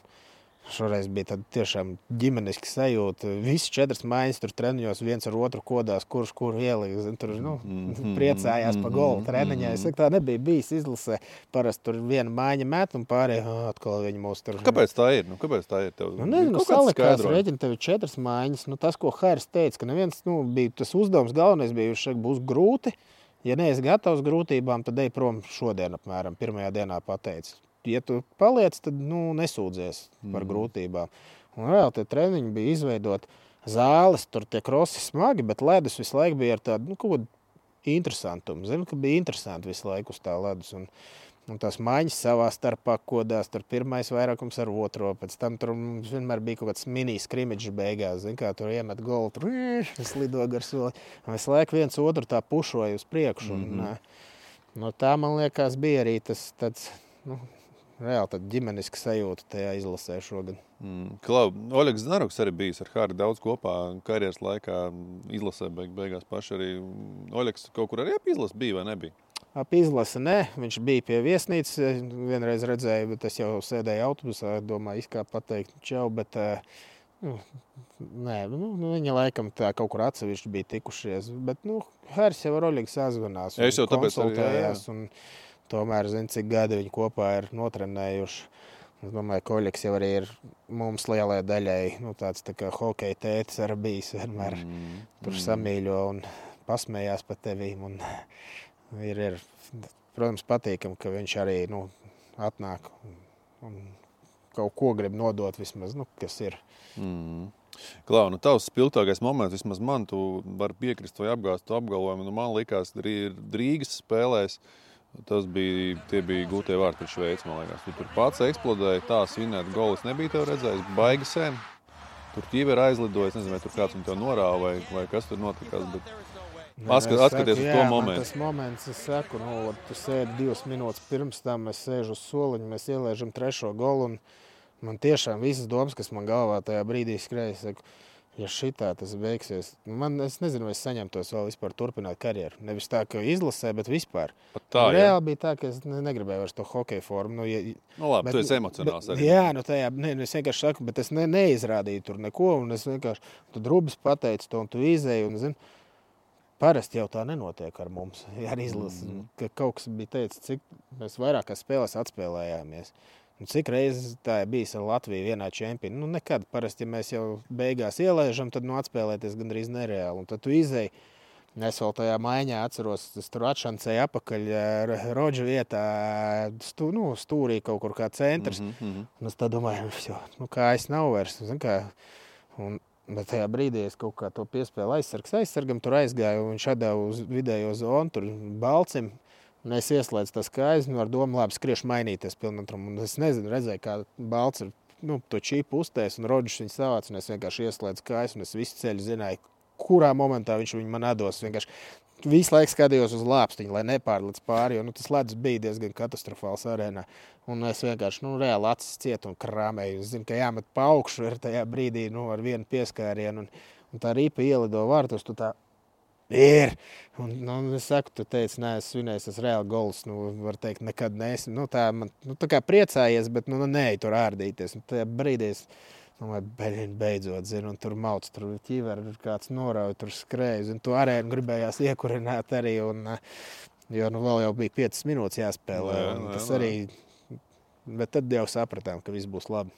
A: šoreiz bija tāda tiešām ģimeniski sajūta. Visi 4 mājas tur treniņos, viens ar otru kodās, kurš kuru ieliks. Tur priecājās pa golu treniņā. Es saku, tā nebija bijis izlasē. Parasti tur viena māja met un pārējie atkal viņi mūs tur...
B: Kāpēc tā ir? Kāpēc tā ir?
A: Nezinu, salikās rēķini, tev ir 4 mājas. Tas, ko Hairs teica, ka neviens, bija tas uzdevums galvenais bija, viņš būs grūti. Ja neesi gatavs grūtībām, tad ej prom šodien apmēram, pirmajā dienā pateici. Ja tu paliec, tad nesūdzies par grūtībām. Un vēl tie treniņi bija izveidot zāles, tur tie krosi smagi, bet ledus visu laiku bija ar tādu, kaut kādu interesantumu. Zinu, ka bija interesanti visu laiku uz tā ledus. Un tās maiņas savā starpā kodās, tur pirmais vairākums ar otro, pēc tam tur vienmēr bija kaut kāds mini skrimidžs beigās, zin kā tur iemet golu, tur slido gar soli, un visu laiku viens otru tā pušoja uz priekšu, un tā, man liekas, bija arī tas tāds, reāli tāda ģimeniska sajūta tajā izlasē šogad.
B: Klau, Oļegs Znaruks arī bijis ar Hāri daudz kopā karjeras laikā, izlasē beigās paši arī. Oļegs kaut kur arī ap izlasi bija vai nebija?
A: Ap izlasi ne, viņš bija pie viesnīcas, vienreiz redzēju, bet es jau sēdēju autobusā, domāju, izkāp pateikt čau, bet nē, viņa laikam tā kaut kur atsevišķi bija tikušies, bet, Hāris jau ar Oļegu sazvanās un konsultējās, un tomēr, cik gadi viņi kopā ir notrenējuši. Es domāju, ka Oļegs jau arī ir mums lielai daļai, tāds tā kā hokeja tētis arī bijis vienmēr tur samīļo un pasmējās pa tevīm, un ir, protams, patīkam, ka viņš arī, atnāk un kaut ko grib nodot vismaz, kas ir.
B: Klau, tavs spilgtākais moments, vismaz man, tu vari piekrist vai apgāzt tu apgalvojumu, man likās, Rīgas spēlēs, tie bija gūtie vārti pret Šveici, man liekas. Tu tur pats eksplodēja, tā svinēt golis nebija tev redzējis, baigi sen. Tur ķīver aizlidoja, es nezinu, vai tur kāds viņu tev norāva vai kas tur notikās, bet... Atskaties uz to momentu.
A: Tas moments, es saku, tu sēdi 2 minūtes pirms tam, es sēžu uz soliņu, mēs ielēžam 3. golu, un man tiešām visas domas, kas man galvā tajā brīdī skrēja, saku, Ja šitā tas beigsies, es nezinu, vai es saņemtos vēl vispār turpināt karjeru. Nevis tā, ka izlasē, bet vispār.
B: Tā,
A: reāli bija tā, ka es negribēju vairs to hokeja formu.
B: Labi, tu esi emocionāls arī.
A: Jā, tajā, es vienkārši saku, bet es neizrādīju tur neko, un es vienkārši, tu drubis pateici to, un tu izēji, un, zini, parasti jau tā nenotiek ar mums. Ar izlasi, ka kaut kas bija teicis, cik mēs vairākās spēlēs atspēlējāmies. Un cik reizes tā ir bijis ar Latviju vienā čempionā? Nekad. Parasti, ja mēs jau beigās ielaižam, tad atspēlēties gandrīz nereāli. Un tad tu izēji. Es vēl tajā maiņā atceros, es tur atšancēju apakaļ Rodža vietā, stūrī kaut kur kā centrs. Un es tā domāju, kā es nav vairs. Bet tajā brīdī es kaut kā to piespēlu aizsargam, tur aizgāju, un viņš atdeva uz vidējo zonu, tur Balcim. Un es ieslēdzu tas kājas, ar domu labi skriešu mainīties pilnatrumu. Un es nezinu, redzēju, kā Balts ir to čīpu uztēs, un Rodžs viņu savāc, un es vienkārši ieslēdzu kājas, un es visu ceļu zināju, kurā momentā viņš viņu man atdos. Vienkārši visu laiku skatījos uz lāpstiņu, lai nepārliec pāri, jo tas ledus bija diezgan katastrofāls arēnā. Un es vienkārši reāli acis cietu un krāmēju. Es zinu, ka jāmet pa augšu ar tajā brīdī ar vienu pieskārienu, un tā ripa ielido vārtus, tu tā ir. Un es saku, tu teici, nē, es svinēju, tas reāli gols, var teikt, nekad neesi. Tā kā priecājies, bet nē, tur ārdīties. Un tajā brīdī es beidzot, zinu, un tur mauc, tur ķiveri, kāds norauj, tur skrēja, un tu arēnu gribējās iekurināt arī, jo vēl jau bija 5 minūtes jāspēlē. Tas arī, bet tad jau sapratām, ka viss būs labi.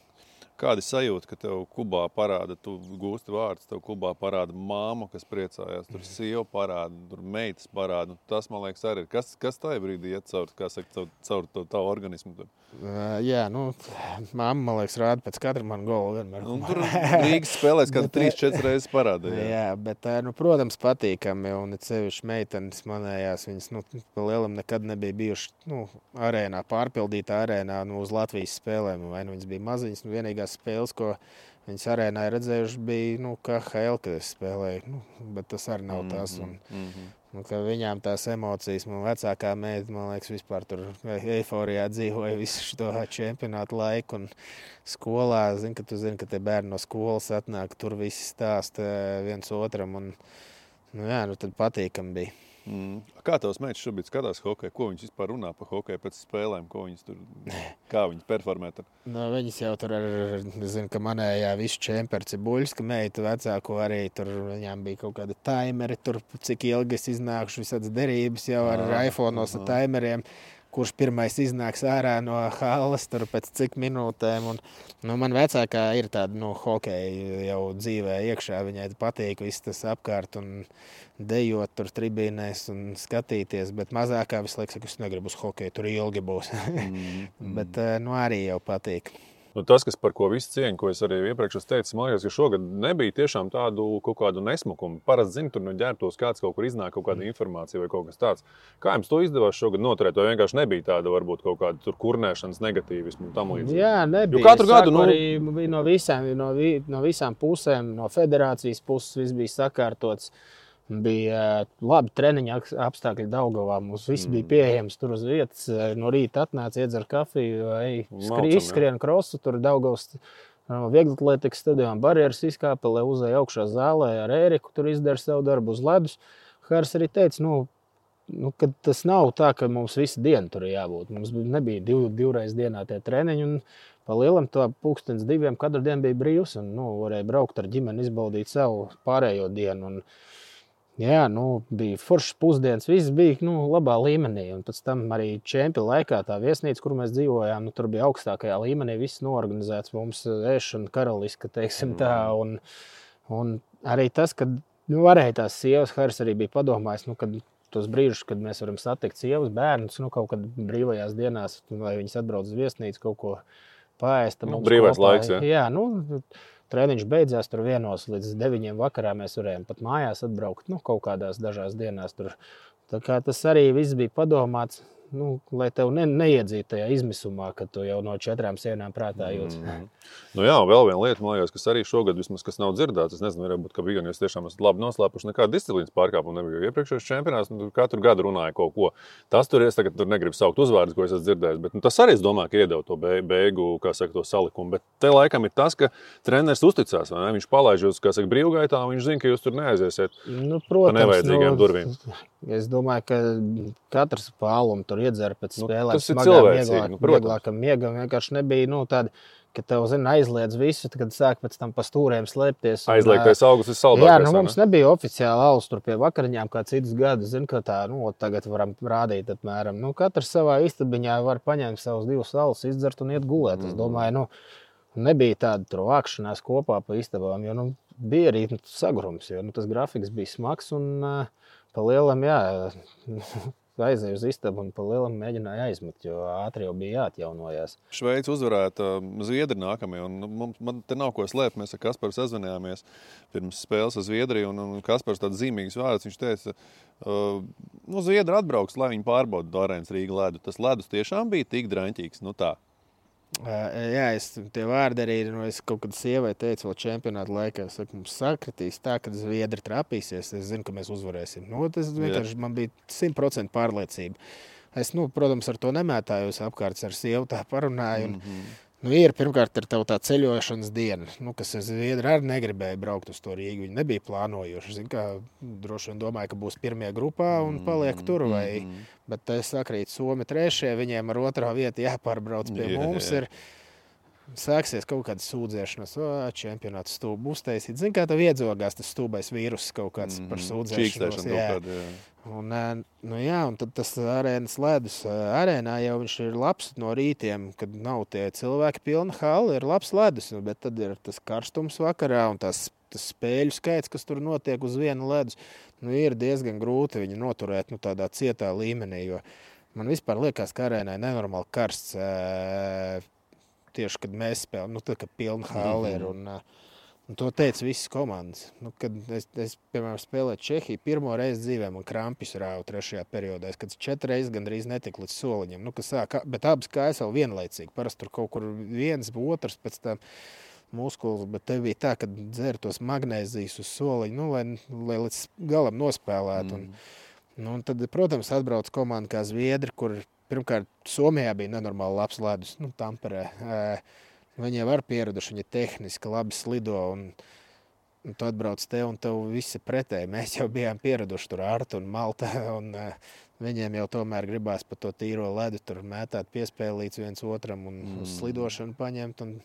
B: Kāda sajūta, ka tev Kubā parāda, tu gūsti vārdus, tev Kubā parāda māma, kas priecājās, tur sieva parāda, tur meitas parāda. Tas, man liekas, arī ir. Kas tajā brīdī iet caur tavu organismu?
A: Jā, mamma, man liekas, rāda pēc katra man gola vienmēr.
B: Tur Rīgas spēlēs kādu 3-4 reizes parāda.
A: Jā, bet, protams, patīkami, un sevišķi meitenes manējās, viņas, pa lielam nekad nebija bijuši, arēnā, pārpildītā arēnā, uz Latvijas spēlēm, vai viņas bija maziņas, vienīgās spēles, ko viņas arēnā ir redzējuši, bija, KHL, kad es spēlēju, bet tas arī nav tas, un ka viņām tās emocijas, man vecākā meita, man liekas, vispār tur eiforijā dzīvoja visu šo čempionātu laiku, un skolā, ka tu zini, ka tie bērni no skolas atnāk, tur visi stāsta viens otram, un, tad patīkami bija.
B: Kā tavs meitas šobrīd skatās hokeju? Ko viņas vispār runā par hokeju pēc spēlēm? Kā viņas performē tur?
A: Viņas jau tur zinu, ka manējā visu čemperi Cibuļska meita vecāko arī tur, viņām bija kaut kādi taimeri tur, cik ilgi es iznākuši visādas derības jau ar iPhone'os ar taimeriem, kurš pirmais iznāks ārā no halles tur pēc cik minūtēm. Un, man vecākā ir tāda hokeja jau dzīvē iekšā, viņai patīk viss tas apkārt un dejot tur tribīnēs un skatīties, bet mazākā visu laiku saka, es negribu uz hokeju, tur ilgi būs. Bet arī jau patīk.
B: Tas, kas par ko visu cieņu, ko es arī iepriekš teicu, man liekas, ka šogad nebija tiešām tādu kaut kādu nesmukumu. Parasti, zinu, tur no ģērbtos kāds kaut kur iznāk kaut kāda informācija vai kaut kas tāds. Kā jums to izdevās šogad noturēt? Vai vienkārši nebija tāda, varbūt kaut kāda tur kurnēšanas negatīvismu un tam līdzīgi?
A: Jā, nebija.
B: Jo katru gadu,
A: arī bija no visām pusēm, no federācijas puses viss bija sakārtots. Bija labi treniņa apstākļi Daugavā. Mums viss bija pieejams tur uz vietas. No rīta atnāca, iedzer kafiju, skrien krosu, tur Daugavas vieglatlētikas stadionā barjeras izkāpa, lai uzēja augšā zālē ar Ēriku, tur izdara savu darbu uz ledus. Hārs arī teica, ka tas nav tā, ka mums visu dienu tur ir jābūt. Mums nebija divreiz dienā tie treniņi, un pa lielam to 1:02 katru dienu bija brīvs, un varēja braukt ar ģimeni, izbaudīt savu pārējo dienu. Un, jā, bija foršs pusdienas, viss bija labā līmenī. Un pēc tam arī čempionu laikā tā viesnīca, kur mēs dzīvojām, tur bija augstākajā līmenī, viss norganizēts mums ēšana karaliska, teiksim tā. Un arī tas, kad varēja tās sievas, Hārs arī bija padomājis, kad tos brīžus, kad mēs varam satikt sievas bērnus, kaut kad brīvajās dienās, lai viņas atbrauc uz viesnīcu, kaut ko paēst.
B: Brīvais laiks, ja?
A: Jā, treniņš beidzās tur 1 līdz 9 vakarā. Mēs varējām pat mājās atbraukt kaut kādās dažās dienās. Tur. Tā kā tas arī viss bija padomāts. lai tev neiedzītu tajā izmisumā, ka tu jau no 4 sienām prātā jūtas.
B: Nu jā, un vēl viena lieta, man liekas, kas arī šogad vismaz kas nav dzirdēts. Es nezinu, varbūt, ka bija, jūs tiešām esat labi noslēpuši nekādu disciplīnas pārkāpumu. Nebija iepriekšējais čempionāts, katru gadu runāja kaut ko. Tas tur es tagad negribu saukt uzvārdus, ko es esmu dzirdējis, bet tas arī, es domāju, ka iedeva to beigu, kā saka, to salikumu. Bet te laikam ir tas, ka treneris uzticās, vai ne? Viņš palaiž jūs, kā saka, brīvgaitā, un viņš zina, ka jūs tur neaiziesiet pa nevajadzīgām durvīm.
A: Es domāju, ka katrs pālumu tur iedzer pēc spēlēm.
B: Tas ir cilvēcīgi,
A: vieglākam miegam. Vienkārši nebija tāda, ka tev, aizliedz visu, kad sāk pēc tam pa stūriem slēpties.
B: Aizliegtais augus ir saldākais.
A: Jā, mums nebija oficiāli alus tur pie vakariņām kā citus gadus. Ka tā, tagad varam rādīt apmēram. Katrs savā istabiņā var paņemt savus 2 alus, izdzert un iet gulēt. Es domāju, nebija tāda tur vākšanās kopā pa istabām, jo bija arī sagrums, jo tas grafiks bija smags un pa lielam, aizēju uz istabu un pa lielam mēģināju aizmet, jo ātri jau bija jāatjaunojās.
B: Šveici uzvarēta Zviedri nākamie, un man te nav ko slēpt. Mēs ar Kasparu sazvanījāmies pirms spēles ar Zviedriju, un Kaspars tāds zīmīgs vārds, viņš teica, Zviedri atbrauks, lai viņi pārbauda Arēnas Rīga ledu. Tas ledus tiešām bija tik draņķīgs, tā.
A: Jā, tie vārdi arī, es kaut kad sievai teicu vēl čempionāta laikā, es saku, mums sakritīs tā, kad Zviedri trapīsies, es zinu, ka mēs uzvarēsim. Tas vienkārši man bija 100% pārliecība. Es, protams, ar to nemētājos apkārt, ar sievu tā parunāju. Ir pirmkārt ir tā ceļošanas diena, kas Zviedri arī negribēja braukt uz to Rīgu. Viņi nebija plānojuši. Droši vien domāju, ka būs pirmie grupā un paliek tur. Bet es sakrītu Somi 3. Viņiem ar 2. vietu jāpārbrauc pie mums. Sāksies kaut kāda sūdzēšanās, čempionāts stūbu uztaisīt. Zini, kā tev iedzogās tas stūbais vīrus kaut kāds par sūdzēšanos. Un tad tas arēnas ledus. Arēnā jau viņš ir labs no rītiem, kad nav tie cilvēki pilna hala, ir labs ledus, bet tad ir tas karstums vakarā un tas spēļu skaits, kas tur notiek uz viena ledus. Ir diezgan grūti viņu noturēt tādā cietā līmenī, jo man vispār liekas, ka arēnai nenormāli karsts. Tieši, kad mēs spēlējam, tad, kad pilna hala ir. Un to teica visas komandas. Kad es piemēram, spēlēju Čehiju, pirmo reizi dzīvē man krampis rāva 3. periodā. Kad 4 reizes gandrīz netika līdz soliņam. Bet abas kājas vēl vienlaicīgi. Parasti tur kaut kur viens, otrs pēc tam muskulis. Bet te bija tā, ka dzer tos magnēzijas uz soliņu, lai līdz galam nospēlētu. Un tad, protams, atbrauc komanda kā Zviedri, kur pirmkārt, Somijā bija nenormāli labs ledus, Tamperē. Viņi jau var pieraduši, viņi tehniski labi slido, un tu atbrauc te, un tev viss ir pretēji. Mēs jau bijām pieraduši tur Arta un Malta, un viņiem jau tomēr gribās pa to tīro ledu tur mētāt piespēlīts viens otram un uz slidošanu paņemt, un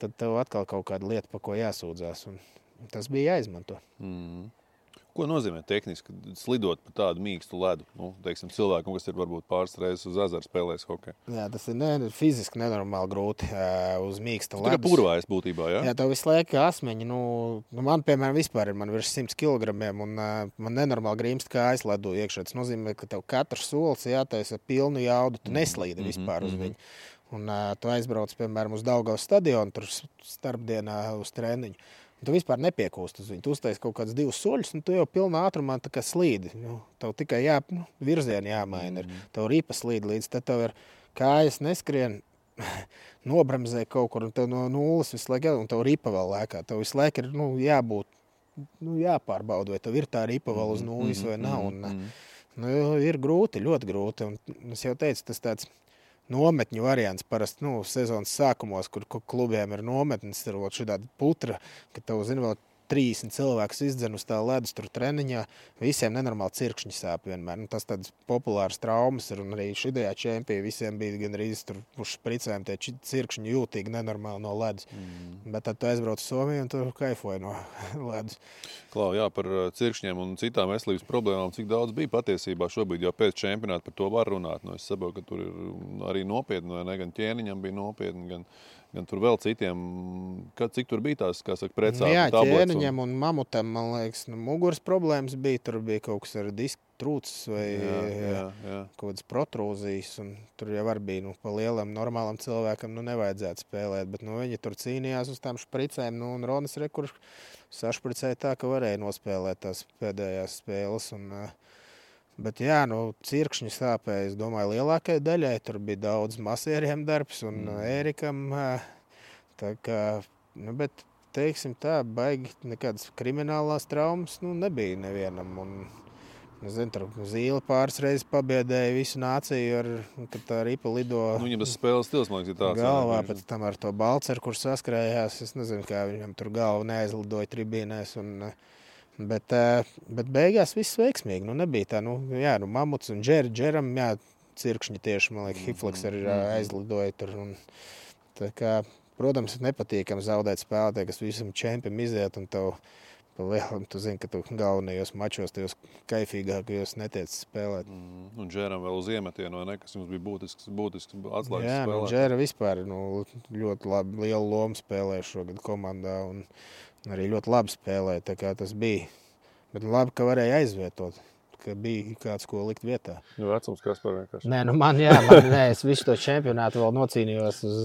A: tad tev atkal kaut kāda lieta, pa ko jāsūdzās, un tas bija jāizmanto.
B: Ko nozīmē tehniski slidot pa tādu mīkstu ledu? Teiksim, cilvēkam, kas ir varbūt pāris reizes uz ezeru spēlējis hokeju.
A: Jā, tas ir fiziski nenormāli grūti uz mīksta ledus.
B: Tā kā purvājas būtībā, jā?
A: Jā, tev visu laiku asmeņi. Man, piemēram, vispār ir virs 100 kilogramiem, un man nenormāli grīmst kājas ledu iekšā. Tas nozīmē, ka tev katrs solis jātaisa pilnu jaudu, tu neslīdi vispār uz viņu. Un tu aizbrauc, piemēram, uz Daugavas stadionu, tur starpdienā uz treniņu. Tu vispār nepiekūst uz viņu. Tu uztais kaut kāds 2 soļus, un tu jau pilnā ātrumā tā kā slīdi. Tev tikai virzieni jāmaina. Tev ripa slīd līdz, tad tev ir kājas neskrien, nobremzē kaut kur, un tev no nulles visu laiku, un tev ripa vēl lēkā. Tev visu laiku ir jābūt, jāpārbauda, vai tev ir tā ripa vēl uz nulles vai nav. Ir grūti, ļoti grūti. Un es jau teicu, tas tāds nometņu variants parasti, sezonas sākumos, kur klubiem ir nometnes, ir šāda putra, ka tev, vēl 30 cilvēkus izdzen uz tā ledus tur treniņā, visiem nenormāli cirkšņi sāp vienmēr. Tas tāds populārs traumas ir, un arī šajā čempionā visiem bija gandrīz tur uz špricēm tie cirkšņi jūtīgi nenormāli no ledus. Bet tad tu aizbrauc uz Somiju un tu kaifoji no ledus.
B: Klau, jā, par cirkšņiem un citām veselības problēmām, cik daudz bija patiesībā šobrīd jau pēc čempionāta par to var runāt. Es saprotu, ka tur ir arī nopietni, vai ne, gan ķēniņam bija nopietni, gan tur vēl citiem, cik tur bija tās, kā saka, precādi
A: tablets? Jā, ķēniņam un mamutam, man liekas, muguras problēmas bija, tur bija kaut kas ar disku trūcis vai kaut kādas protrūzijas, un tur jau arī bija, pa lielam normālam cilvēkam, nevajadzētu spēlēt, bet, viņi tur cīnījās uz tām špricēm, un Ronas sašpricēja tā, ka varēja nospēlēt tās pēdējās spēles, Bet jā, cirkšņi sāpēja, es domāju, lielākai daļai. Tur bija daudz masieriem darbs un Ērikam. Tā kā, bet, teiksim tā, baigi nekādas kriminālās traumas nebija nevienam. Un, nezinu, tur Zīle pāris reizes pabiedēja visu nāciju, kad tā ripa lido
B: Viņam tas spēles stils, man liekas, ir tāds.
A: Galvā, pēc tam ar to Balceru, kurš saskrējās. Es nezinu, kā viņam tur galva neaizlidoja tribīnēs. Bet beigās viss veiksmīgi. Nebija tā, Mamuts un Džeram, cirkšņi tieši, man liekas, Hifleks arī aizlidoja tur. Tā kā, protams, ir nepatīkami zaudēt spēlētāju, kas visam čempim iziet un tev pa lielam, tu zini, ka tu galvenajos mačos, tajos kaifīgākajos netiec spēlēt.
B: Un Džeram vēl uz iemetienu, vai ne, kas jums bija būtisks atslēgas spēlēt.
A: Jā, Džera vispār ļoti lielu lomu spēlēja šogad komandā un arī ļoti labi spēlēja, tā kā tas bija. Bet labi, ka varēja aizvietot, ka bija kāds, ko likt vietā.
B: Vecums Kaspar vienkārši.
A: Nē, es visu to čempionātu vēl nocīnījos uz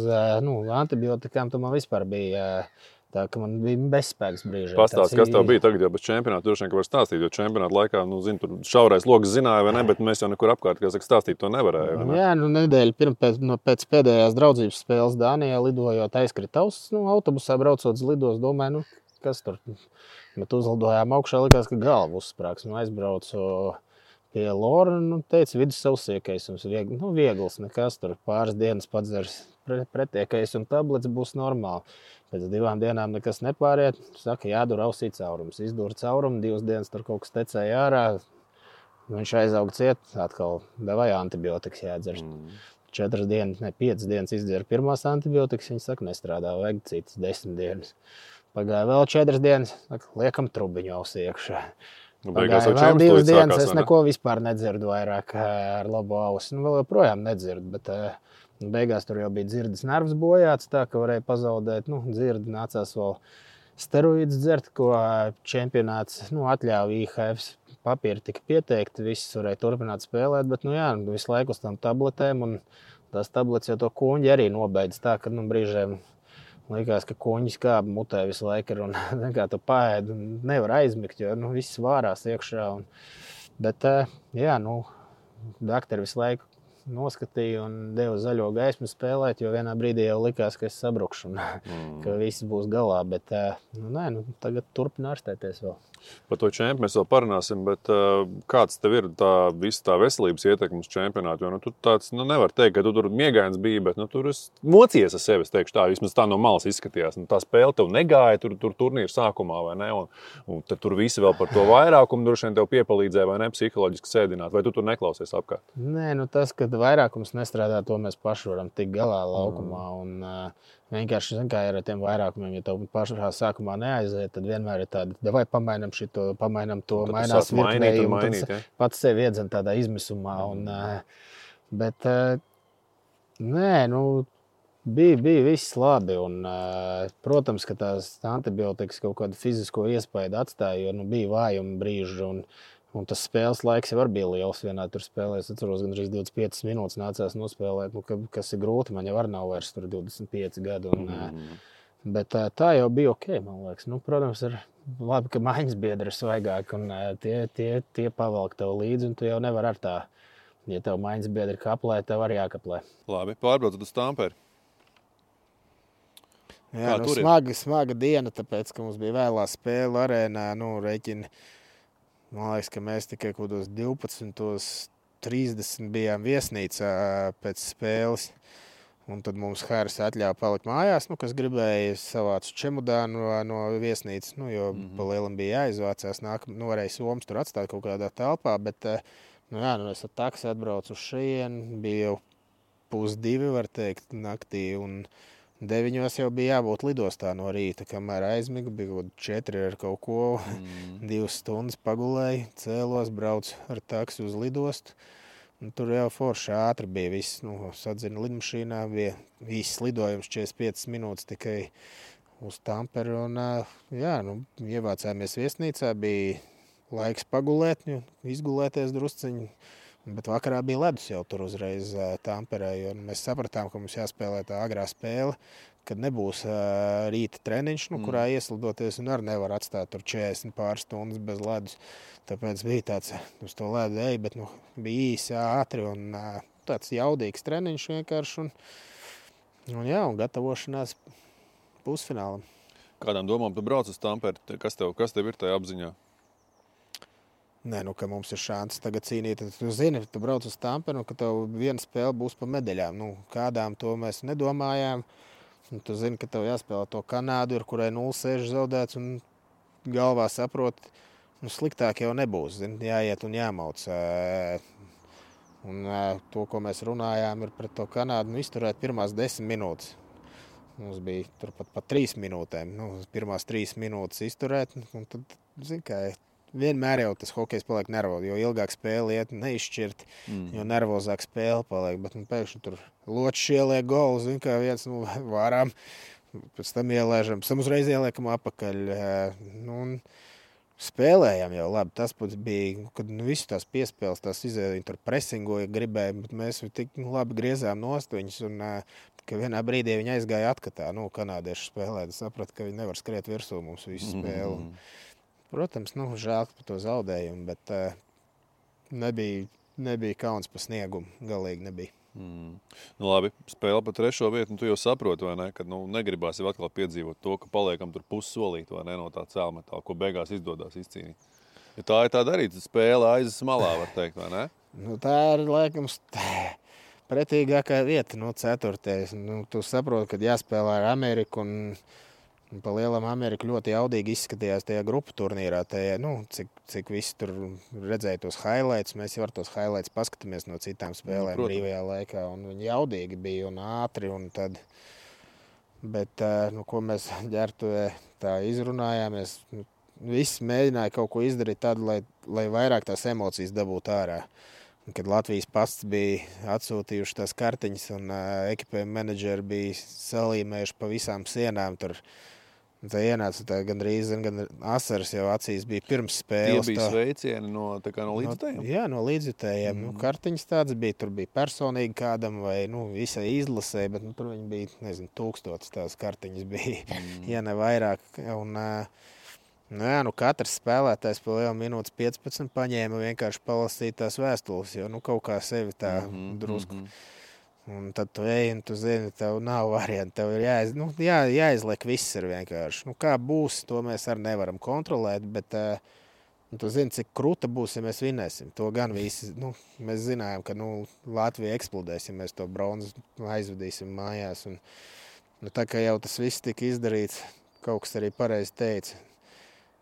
A: antibiotikām, tu man vispār bija tā, ka man bija bezspēks brīži.
B: Pastāst, kas tev bija tagad jau bez čempionāta, droši vien, ka var stāstīt, jo čempionāta laikā, zinu, tur šaurais loks zināja, vai ne, bet mēs jau nekur apkārt, kā saka, stāstīt to nevarēja. Ne?
A: Jā, nedēļa pēc pēdējās draudzības spēles Dānijā lidojot aizkritavs, autobusā braucot uz lidos, domāju, kas tur. Bet uzlidojām augšā, likās, ka galva uzsprāgs. Aizbraucu pie Lora, teica, vidus savsiekaisums, viegls, nekas tur pāris dienas padzers pretiekais un tablets būs normāli. Pēc 2 dienām nekas nepāriet, saka, jādur ausī caurums. Izdūra caurumu, 2 dienas tur kaut kas tecēja ārā, viņš aizauga ciet, atkal davai antibiotikas jādzer. 5 dienas izdzēra pirmās antibiotikas, viņi saka, nestrādā, vajag citas 10 dienas. Pagāja vēl 4 dienas, saka, liekam trubiņu ausī iekšā. Pagāja vēl 2 dienas, es neko vispār nedzirdu vairāk ar labo ausi. Vēl joprojām nedzirdu, bet beigās tur jau bija dzirdes nervs bojāts, tā ka varēja pazaudēt. Dzirdi nācās vēl steroīdus dzert, ko čempionāts atļāva IHF. Papīri tika pieteikti, viss varēja turpināt spēlēt, bet visu laiku uz tām tabletēm. Un tās tabletes jau to kuņģi arī nobeidz tā, ka brīžiem likās, ka kuņģis kāp mutē visu laiku ir un kā tu paēd un nevar aizmigt, jo viss vārās iekšā. Bet daktari visu laiku noskatīja un deva zaļo gaismu spēlēt, jo vienā brīdī jau likās, ka es sabrukšu un ka viss būs galā. Bet tagad turpina ārstēties vēl.
B: Par to čempionu mēs vēl parunāsim, bet kāds tev ir visa tā veselības ietekme uz čempionātu? Jo tu tāds nevar teikt, ka tu tur miegains bija, bet tur mocies ar sevi, es teikšu tā, vismaz tā no malas izskatījās. Tā spēle tev negāja tur turnīra sākumā, vai ne? Un tad tur visi vēl par to vairākumu droši vien tev piepalīdzēja, vai ne, psiholoģiski sēdināt, vai tu tur neklausies apkārt?
A: Nē, tas, ka vairākums nestrādā, to mēs paši varam tikt galā laukumā. Un vienkārši, kā ir ar tiem vairākumiem, ja tev pašā sākumā neaiziet, tad vienmēr ir tāda, davai pamainam šito, pamainam to, mainās virknēji, un tad pats sevi iedzen tādā izmisumā. Bet, bija viss labi. Un, protams, ka tās antibiotikas kaut kādu fizisko iespaidu atstāja, jo bija vājuma brīži. Un tas spēles laiks jau bija liels. Vienā tur spēlē, es atceros, gandrīz 25 minūtes nācās nospēlēt, kas ir grūti. Man jau nav vairs 25 gadu. Bet tā jau bija ok, man liekas. Protams, ir labi, ka maiņas biedri ir svaigāki un tie pavelk tev līdzi. Un tu jau nevar ar tā, ja tev maiņas biedri kaplē, tev arī jākaplē.
B: Labi, pārbraucot uz Tamperi.
A: Jā, smaga diena, tāpēc, ka mums bija vēlā spēle arēnā, reķini. Man liekas, ka mēs tikai kaut kādos 12:30 bijām viesnīcā pēc spēles. Un tad mums Haris atļāva palikt mājās, kas gribēja savācu čemodānu no viesnīcas, jo pa lielam bija jāizvācās. Varēja somas tur atstāt kaut kādā telpā, bet es ar taksi atbraucu uz šejienu, bija jau 1:30, var teikt, naktī. Un 9 jau bija jābūt lidostā no rīta, kamēr aizmigu, bija 4 ar kaut ko, 2 stundas pagulēju, cēlos, braucu ar taksi uz lidostu. Un tur jau forši ātri bija viss, sadzina lidmašīnā, bija īsts lidojums 45 minūtes tikai uz Tamperi. Un, ievācāmies viesnīcā, bija laiks pagulēt, izgulēties drusciņi. Bet vakarā bija ledus jau tur uzreiz Tamperē, jo mēs sapratām, ka mums jāspēlē tā agrā spēle, kad nebūs rīta treniņš, kurā ieslidoties un arī nevar atstāt tur 40 pār stundas bez ledus. Tāpēc bija tāds uz to ledu ej, bet bija īsi, ātri un tāds jaudīgs treniņš vienkārši un gatavošanās pusfinālam.
B: Kādām domām tu brauc uz Tamperi? Kas tev ir tajā apziņā?
A: Nē, ka mums ir šāds tagad cīnīt. Tu zini, tu brauc uz Tamperi, ka tev viena spēle būs pa medaļām. Kādām to mēs nedomājām. Un tu zini, ka tev jāspēlē to Kanādu, ar kurai 0-6 zaudēts un galvā saprot, sliktāk jau nebūs. Zini, jāiet un jāmauc. Un to, ko mēs runājām, ir pret to Kanādu, izturēt pirmās 10 minūtes. Mums bija turpat pa 3 minūtēm. Pirmās 3 minūtes izturēt, un tad, zini, kā vienmēr jau tas hokejs paliek nervozi, jo ilgāk spēle iet neizšķirt, jo nervozāk spēle paliek. Bet pēkšņi tur ločs ieliek golu, zini, kā viens vārām, pēc tam ielēžam, pēc tam uzreiz ieliekam apakaļ. Un spēlējām jau labi. Tas pats bija, kad visu tās piespēles, tās izēja, viņi tur presingoja, gribēja, bet mēs tik labi griezām nost viņus, un ka vienā brīdī viņi aizgāja atkatā. Kanādieši spēlē, saprata, ka viņi nevar skriet virsū mums visu spēli. Protams, žēl par to zaudējumu, bet nebija kauns par sniegumu. Galīgi nebija.
B: Labi, spēle pa 3. vietu, tu jau saproti, vai ne, kad negribās jau atkal piedzīvot to, ka paliekam tur pussolīt, vai ne, no tā cēlmetāla, ko beigās izdodas izcīnīt. Ja tā ir tā darīta, spēle aizes malā, var teikt, vai ne?
A: Tā ir, laikam, pretīgākā vieta, 4. Tu saproti, kad jāspēlē ar Ameriku un pa lielam Amerika ļoti jaudīgi izskatījās tajā grupu turnīrā. Cik visi tur redzēja tos highlights, mēs jau ar tos highlights paskatāmies no citām spēlēm brīvajā laikā. Un viņi jaudīgi bija un ātri. Un tad, bet, ko mēs ģērbtuvē tā izrunājāmies, visi mēģināja kaut ko izdarīt tādu, lai vairāk tās emocijas dabūtu ārā. Un, kad Latvijas pasts bija atsūtījuši tās kartiņas un ekipējuma menedžeri bija salīmējuši pa visām sienām tur. Tā ienāca gandrīz asaras jau acīs bija pirms spēles.
B: Tie bija sveicieni no līdzjutējiem?
A: Jā, no līdzjutējiem. Kartiņas tāds bija, tur bija personīgi kādam vai visai izlasē, bet tur viņi bija, 1000 tās kartiņas bija, ja ne vairāk. Un, katrs spēlētājs pa lielu minūtes 15 paņēma vienkārši palasīt tās vēstules, jo kaut kā sevi tā drusku. Un tad tu ej, un tu zini, tev nav varianti, tev ir jāizliek viss ir vienkārši. Kā būs, to mēs arī nevaram kontrolēt, bet tu zini, cik kruta būs, ja mēs vinēsim. To gan visi, mēs zinājām, ka Latvija eksplodēs, ja mēs to bronzu aizvedīsim mājās. Un, tā kā jau tas viss tika izdarīts, kaut kas arī pareizi teica.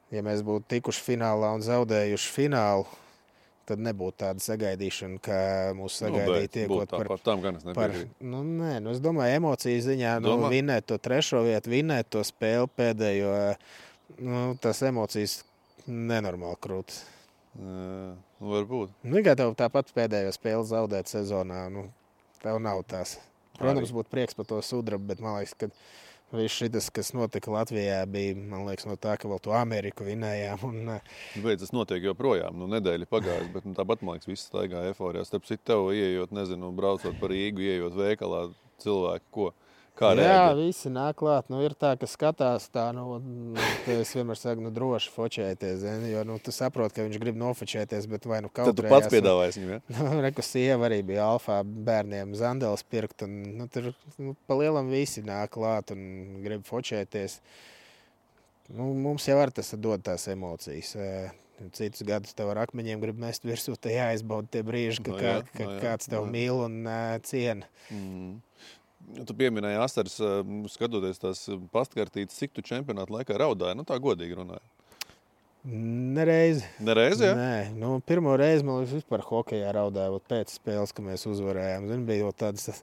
A: Ja mēs būtu tikuši finālā un zaudējuši finālu, tad nebūtu tāda sagaidīšana, kā mūs sagaidīja tiekot par... es domāju, emociju ziņā, vinēt to 3. vietu, vinēt to spēli pēdējo, tās emocijas nenormāli krūtas.
B: Varbūt.
A: Kā tev tāpat pēdējo spēli zaudēt sezonā, tev nav tās. Protams, būtu prieks par to sudrabu, bet man liekas, ka viss šitas, kas notika Latvijā, bija, man liekas, no tā, ka vēl to Ameriku vinējām.
B: Bet tas notiek joprojām. Nedēļa pagājusi, bet tāpat, man liekas, viss staigā eforijā. Starp citu, tev ieejot, braucot par Rīgu, ieejot veikalā, cilvēki, ko? Kā reaģē?
A: Jā, visi nāk klāt. Ir tā, ka skatās tā, es vienmēr saku, droši fočēties, jo, tu saproti, ka viņš grib nofočēties, bet vai kaut
B: tad tu pats piedāvājies viņam, ja?
A: Reku sieva arī bija alfā bērniem Zandeles pirkt, un tur pa lielam visi nāk klāt un grib fočēties. Mums jau ar tas dod tās emocijas. Citus gadus tev ar akmeņiem grib mest virsū, te jāizbauda tie brīži, ka kāds tev mīl un ciena.
B: Tu pieminēji asaras, skatoties tās pastkartītes, cik tu čempionātu laikā raudāji? Tā godīgi runāji.
A: Nereizi.
B: Nereizi, jā?
A: Nē, pirmo reizi man vispār hokejā raudāju pēc spēles, ka mēs uzvarējām. Bija jau tādas,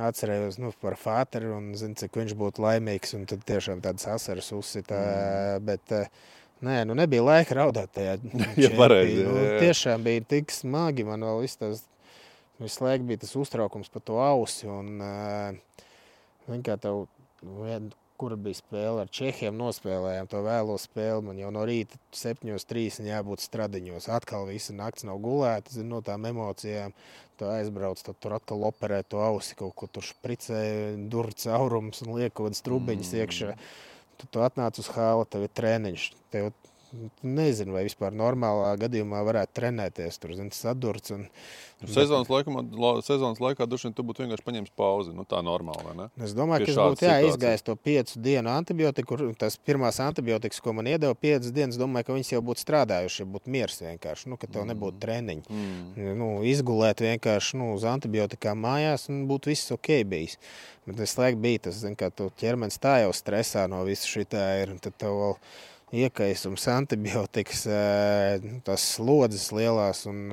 A: atcerējos par Fāteru un cik viņš būtu laimīgs, un tad tiešām tādas asaras uzsita, bet... nebija laika raudāt tajā čempī. Tiešām bija tik smagi, man vēl visu laiku bija tas uztraukums par to ausi, un kā tev kura bija spēle ar Čehiem, nospēlējām to vēlo spēli. Man jau no rīta 7:30 jābūt stradiņos. Atkal visa nakts nav gulēta, no tām emocijām. Tu aizbrauc, tad tur atkal operē to ausi, kaut ko tur špricē, dur caurums un liek kaut kādas trubiņas iekšā. Tu atnāc uz hāla, tev ir treniņš. Tev nezinu, vai vispār normālā gadījumā varētu trenēties. Tur, zini, sadurts.
B: Sezonas laikā droši vien tu būtu vienkārši paņēmis pauzi. Tā normāli, vai ne?
A: Es domāju, ka es būtu izgājis to 5 dienu antibiotiku. Tas pirmās antibiotikas, ko man iedeva 5 dienas, domāju, ka viņas jau būtu strādājuši, ja būtu miers vienkārši, ka tev nebūtu treniņi. Izgulēt vienkārši uz antibiotikām mājās un būtu viss ok bijis. Bet es laiku bija tas, zin, ka tu ķermenis tā jau stresā no visu šitā ir, un tad tev vēl iekaisums, antibiotikas, tās slodzes lielās un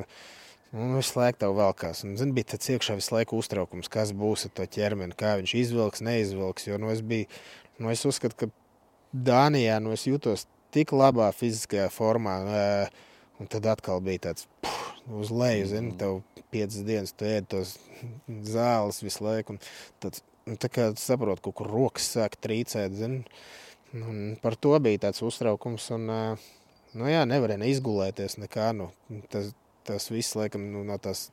A: visu laiku tev velkās. Un, zin, bija tāds iekšā visu laiku uztraukums, kas būs ar to ķermeni, kā viņš izvilks, neizvilks. Jo es uzskatu, ka Dānijā es jūtos tik labā fiziskajā formā, un tad atkal bija tāds uz leju, zin, tev 5 dienas tu ēd tos zāles visu laiku. Un tā kā saprot, kaut kur rokas sāk trīcēt, zin. Un par to bija tāds uztraukums, un nevarēja neizgulēties nekā. Tas viss, laikam, no tās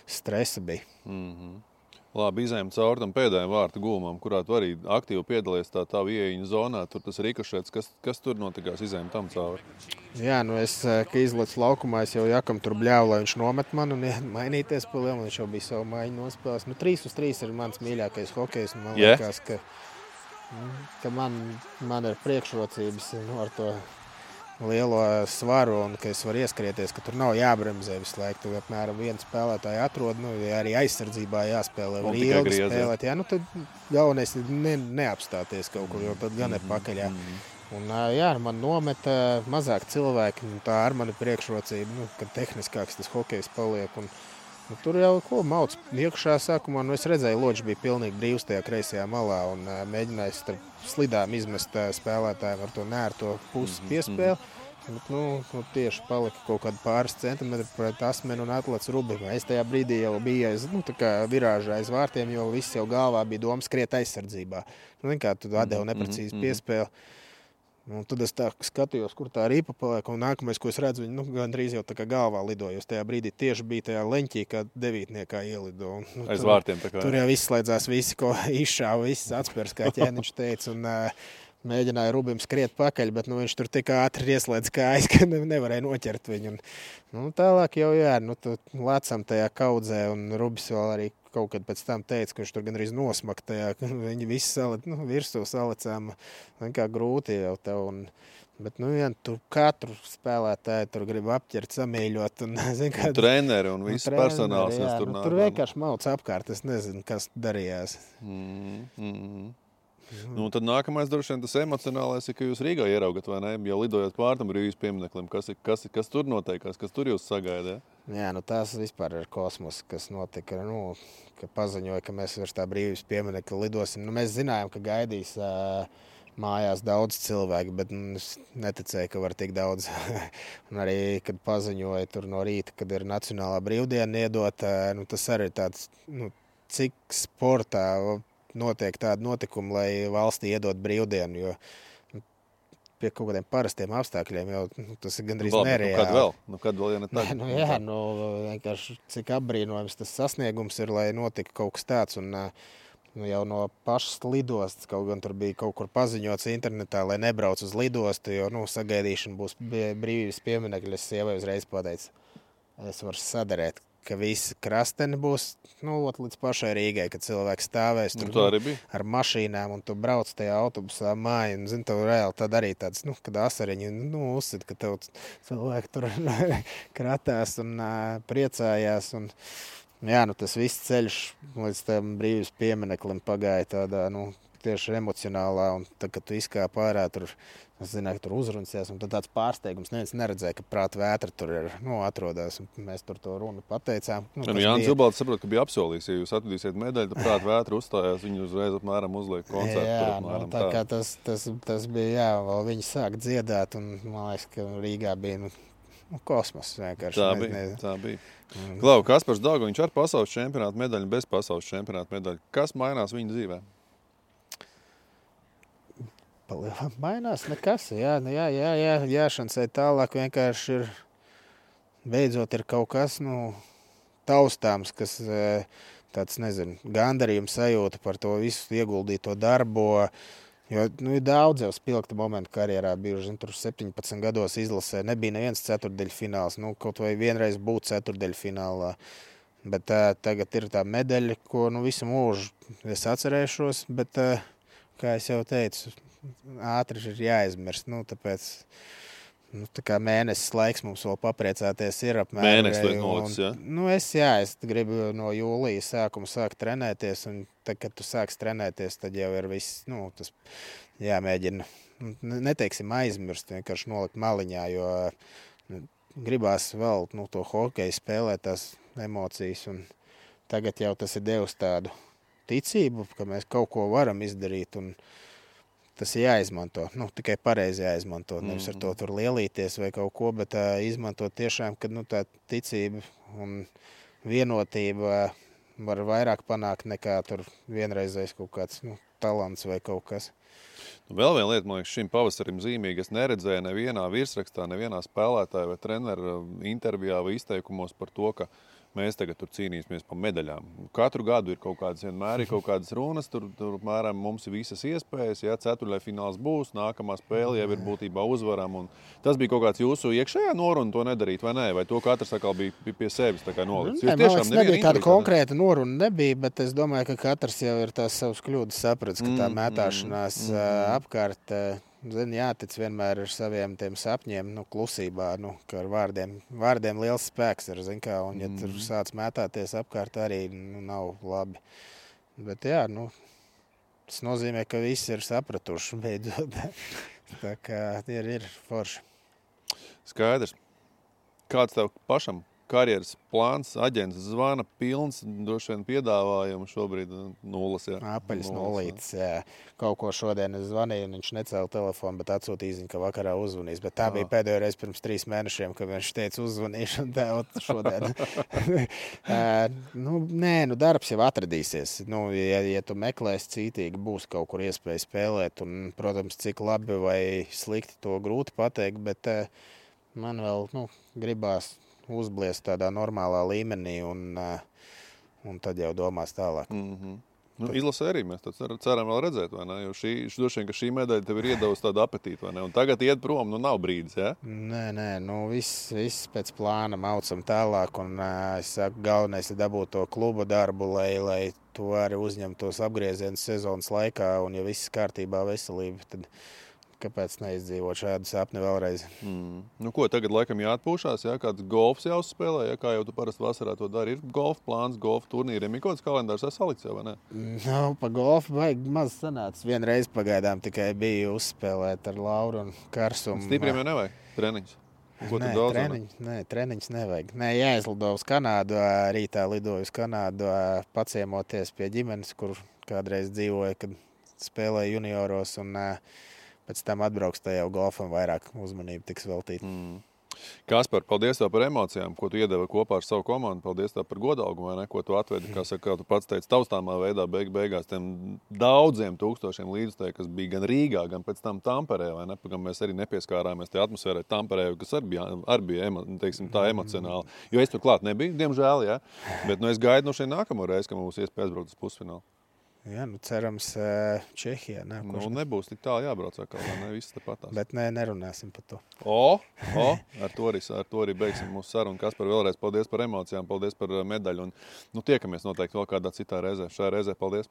A: stresa bija.
B: Labi, izējām cauri tam pēdējiem vārtu gulumam, kurā tu arī aktīvi piedalies tā ieejiņa zonā. Tur tas rikošēts, kas tur notikās, izējām tam cauri?
A: Jā, es, ka izlecu laukumā, es jau Jakam tur bļāvu, lai viņš nomet man un mainīties pa lielu, viņš jau bija savu maiņu nospēlēs. 3-3 ir mans mīļākais hokejs, un man liekas, ka man ir priekšrocības ar to lielo svaru un ka es varu ieskrieties, ka tur nav jābremzē visu laiku. Tu apmēram vienu spēlētāju atrod, arī aizsardzībā jāspēlē, var ilgi spēlēt. Jā, tad galvenais ir neapstāties kaut kur, jo tad gan ir pakaļā. Un man nometa mazāk cilvēki, tā ar mani priekšrocība, ka tehniskāks tas hokejs paliek. Un tur jau mauc iekšā sākumā, es redzēju, Loģis bija pilnīgi brīvs tajā kreisajā malā un mēģināja starp slidām izmest spēlētājiem ar to nērto pusi piespēli. Bet, tieši palika kaut kādi pāris centimetri pret asmeni un atlec Rubim. Es tajā brīdī jau biju virāžā aiz vārtiem, jo viss jau galvā bija doma skriet aizsardzībā. Kā tu atdevi neprecīzi piespēli. Un tad es tā skatījos, kur tā ripa paliek, un nākamais, ko es redzu, viņi gandrīz jau tā kā galvā lidoja. Tajā brīdī tieši bija tajā leņķī, kā 9. ielido.
B: Aiz vārtiem tā kā.
A: Tur jau izslēdzās visi, ko izšāva, viss atspērs, kā ķēniņš teica, un mēģināja Rubim skriet pakaļ, bet viņš tur tik ātri ieslēdz kājas, ka nevarēja noķert viņu. Tālāk jau lecam tajā kaudzē, un Rubis vēl arī kaut kad pēc tam teica, ka viņš tur gandrīz nosmaka tajā, viņi visi virsū salicām, kā grūti jau tev. Bet, tu katru spēlētāju tur grib apķert, samīļot.
B: Treneri un viss personāls.
A: Tur vienkārši mauc apkārt, es nezinu, kas darījās.
B: Tad nākamais droši vien tas emocionālais ir, ka jūs Rīgā ieraugat, vai ne? Jau lidojot pār tam brīvības piemineklim, kas tur noteikās, kas tur jūs sagaida?
A: Jā, tās vispār ir kosmos, kas notika, ka paziņoja, ka mēs virs tā brīvības pieminekļa lidosim. Mēs zinājām, ka gaidīs mājās daudz cilvēku, bet es neticēju, ka var tik daudz. Un arī, kad paziņoja tur no rīta, kad ir nacionālā brīvdiena iedot, tas arī ir tāds, cik sportā notiek tādi notikumi, lai valstī iedot brīvdienu, jo pie kaut kādiem parastiem apstākļiem jau tas ir gandrīz nereāli.
B: Kad vēl, ja ne tā?
A: Vienkārši cik apbrīnojams tas sasniegums ir, lai notika kaut kas tāds, un jau no pašas lidostas, kaut gan tur bija kaut kur paziņots internetā, lai nebrauc uz lidostu, jo, sagaidīšana būs brīvības pieminekļa, es sievai uzreiz pateicu, es varu sadarēt, ka visi krasteni būs līdz pašai Rīgai, kad cilvēks stāvēs tur ar mašīnām un tu brauc tajā autobusā māju. Un, tev reāli tad arī tāds, kad asariņi uzsit, ka tev cilvēki tur kratās un priecājās. Un, tas viss ceļš līdz tam brīvības piemineklim pagāja tādā, tieši emocionālā. Un tad, kad tu izkāp ārā, es zināju, ka tur uzruncies, un tad tāds pārsteigums. Neviens neredzēja, ka prāta vētra tur ir atrodas. Mēs tur to runu pateicām.
B: Jānis Zilbalds saprot, ka bija apsolījis, ja jūs atvedīsiet medaļu, tad prāta vētra uzstājās, viņi uzreiz apmēram uzliek koncertu.
A: Tā kā tas bija, vēl viņi sāk dziedāt, un man liekas, ka Rīgā bija kosmos vienkārši.
B: Tā bija. Klau, Kaspars Daugaviņš ar pasaules čempionātu medaļu, bez pasaules čempionātu medaļu. Kas mainās viņa dzīvē?
A: Mainās nekas. Jāšancē tālāk vienkārši ir beidzot ir kaut kas taustāms, kas tāds, nezinu, gandarījums sajūta par to visu ieguldīto darbu. Jo ir daudz jau spilgta momentu karjerā bijuši. Tur 17 gados izlasē nebija neviens ceturtdaļfināls. Kaut vai vienreiz būt ceturtdaļfinālā. Bet tagad ir tā medaļa, ko visu mūžu es atcerēšos. Bet, kā es jau teicu, ātri ir jāizmirst. Tāpēc tā kā mēnesis laiks mums vēl papriecāties ir apmēram.
B: Mēnesis liek nolicis,
A: ja? Es gribu no jūlija sākuma sākt trenēties, un tad, kad tu sāks trenēties, tad jau ir viss, tas jāmēģina, neteiksim aizmirst, vienkārši nolikt maliņā, jo gribās vēl to hokeju spēlēt, tās emocijas, un tagad jau tas ir devis tādu ticību, ka mēs kaut ko varam izdarīt, un tas ir jāizmanto. Tikai pareizi jāizmanto. Nevis ar to tur lielīties vai kaut ko, bet izmantot tiešām, kad tā ticība un vienotība var vairāk panākt nekā tur vienreizais kaut kāds talants vai kaut kas.
B: Vēl viena lieta, man liekas, šim pavasarim zīmīgi. Es neredzēju nevienā virsrakstā, nevienā spēlētāja vai treneru intervijā vai izteikumos par to, ka mēs tagad tur cīnīsimies par medaļām. Katru gadu ir kaut kādas, vienmēr ir kaut kādas runas, tur mēram mums ir visas iespējas, ceturtdaļfināls būs, nākamā spēle jau ir būtībā uzvaram. Un tas bija kaut kāds jūsu iekšējā noruna to nedarīt, vai nē? Vai to katrs atkal bija pie sevis tā kā nolicis?
A: Nebija tāda konkrēta noruna, bet es domāju, ka katrs jau ir tās savas kļūdas sapratis, ka tā mētāšanās apkārt jātic vienmēr ar saviem tiem sapņiem, klusībā, ka ar vārdiem liels spēks ir, un ja tur sāc mētāties apkārt arī nav labi. Bet tas nozīmē, ka visi ir sapratuši beidzot. Tā kā ir forši.
B: Skaidrs. Kāds tev pašam karjeras plāns, aģents zvana pilns, droši vien piedāvājumu šobrīd nulles, jā.
A: Apaļas nulītes, jā. Kaut ko šodien es zvanīju, un viņš necēla telefonu, bet atsūtīja ziņu, ka vakarā uzvanīs. Bet tā bija pēdējo reizi pirms 3 mēnešiem, kad viņš teica uzvanīšu, un tā šodien. Darbs jau atradīsies. Ja tu meklēsi cītīgi, būs kaut kur iespēja spēlēt, un, protams, cik labi vai slikti to grūti pateikt, bet man vēl, gribās uzbliest tādā normālā līmenī, un tad jau domās tālāk.
B: Izlasē arī mēs ceram vēl redzēt, vai ne? Jo droši vien, ka šī medaļa tev ir iedavusi tādu apetītu, vai ne? Un tagad iet prom, nav brīdis, jā?
A: Nē, viss pēc plāna maucam tālāk, un es saku, galvenais ir dabūt to kluba darbu, lai tu arī uzņemtos apgriezienus sezonas laikā, un ja viss kārtībā veselība, tad kāpēc neizdzīvot šādu sapni vēlreiz?
B: Ko, tagad laikam jāatpūšās, kāds golfs jāuzspēlē, kā jau tu parasti vasarā to dari? Ir golf plāns, golf turnīriem, ir kaut kāds kalendārs salikts, vai ne?
A: Pa golfu vajag maz sanāca. Vienreiz pagaidām tikai biju uzspēlēt ar Lauru un Karsumu.
B: Stipriem jau nevajag treniņus?
A: Treniņus nevajag. Jāizlido uz Kanādu, rītā lidoju uz Kanādu, paciemoties pie ģimenes, kur kādreiz dzīvoja, kad spēlēja junioros, un pēc tam atbrauks tajā golfam vairāk uzmanību tiks veltīt.
B: Kaspar, paldies tev par emocijām, ko tu iedevi kopā ar savu komandu. Paldies tev par godalgumu, vai ne, ko tu atvedi, kā tu pats teici, taustāmā veidā beigās tiem daudziem tūkstošiem līdzstēju, kas bija gan Rīgā, gan pēc tam Tamperē, vai ne, gan mēs arī nepieskārāmies tie atmosfērai Tamperē, kas arī bija teiksim, tā emocionāli. Jo es tur klāt nebiju, diemžēl, jā, bet es gaidu no šeit nākamo reizi, ka mums iespēja aizbraukt uz pusfinālu.
A: Jā, cerams, Čehijā.
B: Nebūs tik tālu jābrauc atkal, ne viss tāpatās.
A: Bet nerunāsim par to.
B: Ar to arī beigsim mūsu sarunu. Kaspar, vēlreiz paldies par emocijām, paldies par medaļu. Un tiekamies noteikti vēl kādā citā reizē. Šajā reizē paldies.